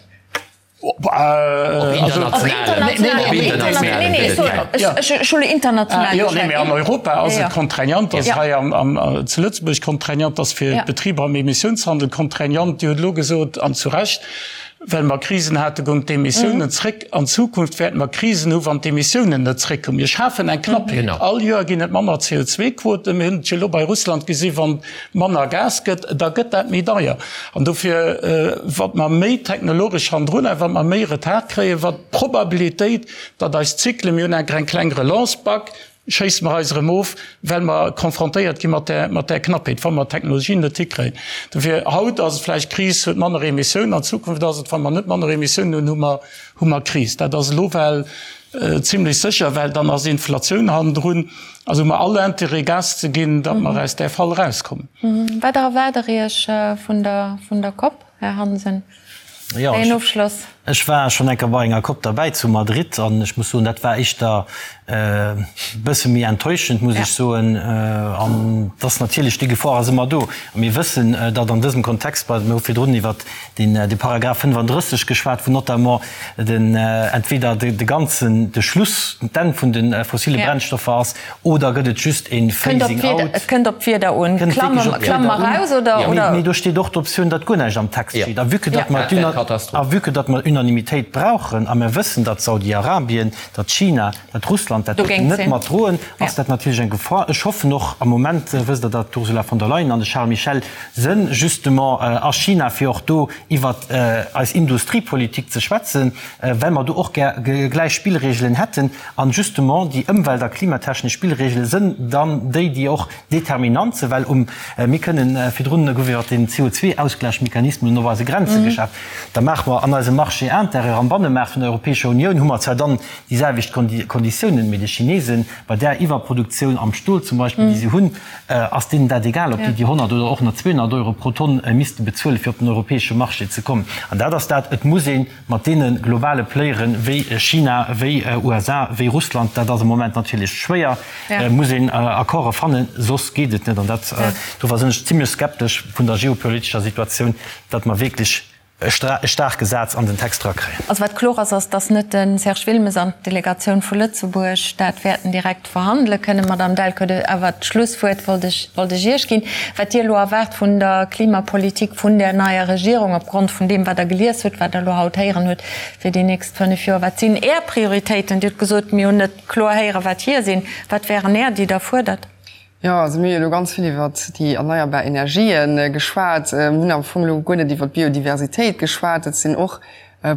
[SPEAKER 6] An Europa ass et contraignant, ass hei zu Lëtzebuerg contraignant, ass fir d'Betriber am Emissiounshandel contraignant. Dir hutt elo gesot, an zu Recht, well mer Krisen haten, goung d'Emissiounen zréck. An Zukunft wäerte mer Krisen hu wann d'Emissiounen net zréckkommen. Mir schafen eng Knappheet. All Joer ginn et manner CO2-Quoten. Mir hunn et jo elo bei Russland gesi wann manner Gas gëtt, da gëtt dat méi deier. An dofir, wat mer méi technologesch hannendrun a wat mer méi Retard kréien, wat d'Probabilitéit, datt eis Zyklen, mir hunn enker eng kleng Relance bak, schéisse mer eis erëm of, well mer confrontéiert gi mat där, mat där Knappheet, wa mer d'Technologien net hikréien. Dofir, haut ass et vläicht Kris, huet manner Emissiounen, an Zukunft ass et, wa mer net manner Emissiounen hunn, hu mer, hu mer Kris. Dat ass elo well zimlech sécher, well dann ass Inflatioun hannendrun. Also hu mer all Intérêt Gas ze ginn, datt mer aus där Fall erauskommen.
[SPEAKER 2] Wat erwaart Der Iech vun der, vun der Cop, Här Hansen?
[SPEAKER 4] Wéi een Ofschloss? Ech war schonn eng Kéier bei enger Cop derbäi zu Madrid an ech muss soen, dat war éischter e bësse méi enttäuschend, muss ech soen. An et ass natierlech, déi Gefor ass ëmmer do. A mir wëssen, datt an dësem Kontext, bei, mir hu virdrun iwwert deen, de Paragraph 35 geschwat, wou notamment den, entweder de ganzen, de Schluss, d'Enn vun de fossile Brennstoffer ass, Oder gëtt et just een Phasing out?
[SPEAKER 2] Et kënnt op d'Wieder un. Klamme mer raus oder?
[SPEAKER 4] Mee do steet och d'Optioun, datt guer näischt am Text steet. A vue que datt mer a vue que datt mer Unanimitéit brauchen a mer wëssen, datt Saudi-Arabien, datt China, datt Russland dat net mat droen, ass dat natierlech eng Gefor. Ech hoffen och, am Moment wësst Der, datt d'Ursula von der Leyen an de Charles Michel sënn justement a China, fir och do iwwert eis Industriepolitik ze schwätzen, well mer do och gär gläich Spillregelen hätten. An justement déi ëmwelt a klimatechnesch Spillregele sënn dann déi, déi och determinant sinn, well um, mir kënnen, virdrun gouf iwwert den CO2-Ausglächmechanismus op eise Grenze geschaf, da maache mer an eisem Marché intérieur, am Bannemaart vun der Europäescher Unioun hu mer zwar dann déi selwecht Konditiounen, mee de Chinesen, bei där Iwwerproduktioun am Stol zum Beispill, déi se hunn, ass deenen dat egal, ob déi déi 100 oder och nach 200 Euro pro Tonn misste bezuelen, fir op den europäesche Marché ze kommen. An dat ass dat, et muss ee mat deene globale Playere wéi China, wéi USA, wéi Russland, dat ass am Moment natierlech schwéier, muss een Accorde fannen, soss geet et net. An dat, dofir sinn ech zimlech skeptesch vun der geopolitescher Situatioun, datt mer wierklech e staarke Saz an den Text erakréien.
[SPEAKER 2] Also wat kloer ass, ass, datt net de Serge Wilmes an d'Delegatioun vu Lëtzebuerg dat wäerten direkt verhandele kënnen. Madame Delcourt, awer d'Schlusswuert wollt ech, wollt ech Iech ginn. Wat Dir elo erwaart vun der Klimapolitik vun där neier Regierung, opgrond vun deem, wat Der gelies hutt, wat Der elo haut héieren hutt, fir déi nächst 5 Joer, wat sinn Är Prioritéiten? Dir hutt gesot, mir hunn net kloer héieren, wat hir sinn. Wat wären Är, déi Der fuerdert?
[SPEAKER 3] Jo, also mir hu jo elo ganz vill iwwert déi erneierbar Energië geschwat. Mir hunn am Fong elo guer net iwwert d'Biodiversitéit geschwat. Dat sinn och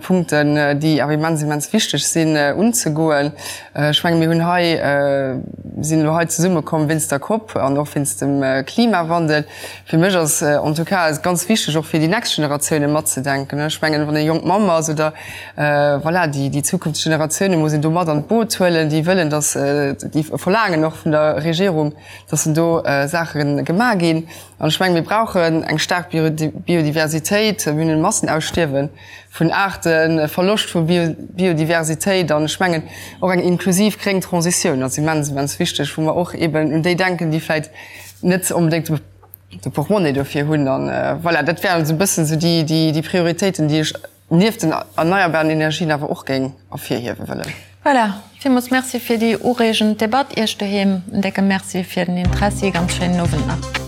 [SPEAKER 3] Punkten, déi awer immens, immens wichteg sinn unzegoen. Ech menge mir hunn hei, sinn elo hei zesummekomm wéinst der Cop an och wéinst dem Klimawandel. Fir mech ass en tout cas ganz wichteg och fir déi nächst Generatioune matzedenken. Ech mengen, wann ee jonk Mamm ass oder voilà, déi, déi zukünfteg Generatioune muss een do mat an d'Boot huelen, déi wëllen, datt, déi verlaangen och vun der Regierung, datt do Saache gemaach ginn. An ech mengen, mir brauchen eng staark Biodiversitéit. Mir hunn e Massenausstierwe vun Aarten, e Verloscht vu Biodiversitéit. An ech mengen, och eng inklusiv gréng Transitioun ass immens, immens wichteg, wou mer och eeben un déi denken, déi vläicht net onbedéngt de Portmonnaie dofir hunn. An voilà, dat wären esou e bëssen esou déi Prioritéiten, déi ech nieft den erneierbaren Energien awer och géing ervirhiewe wëllen.
[SPEAKER 2] Voilà, villmools Merci fir déi ureegend Debatt. Iech doheem en décke Merci fir den Interessi. Ganz schéinen Owend nach.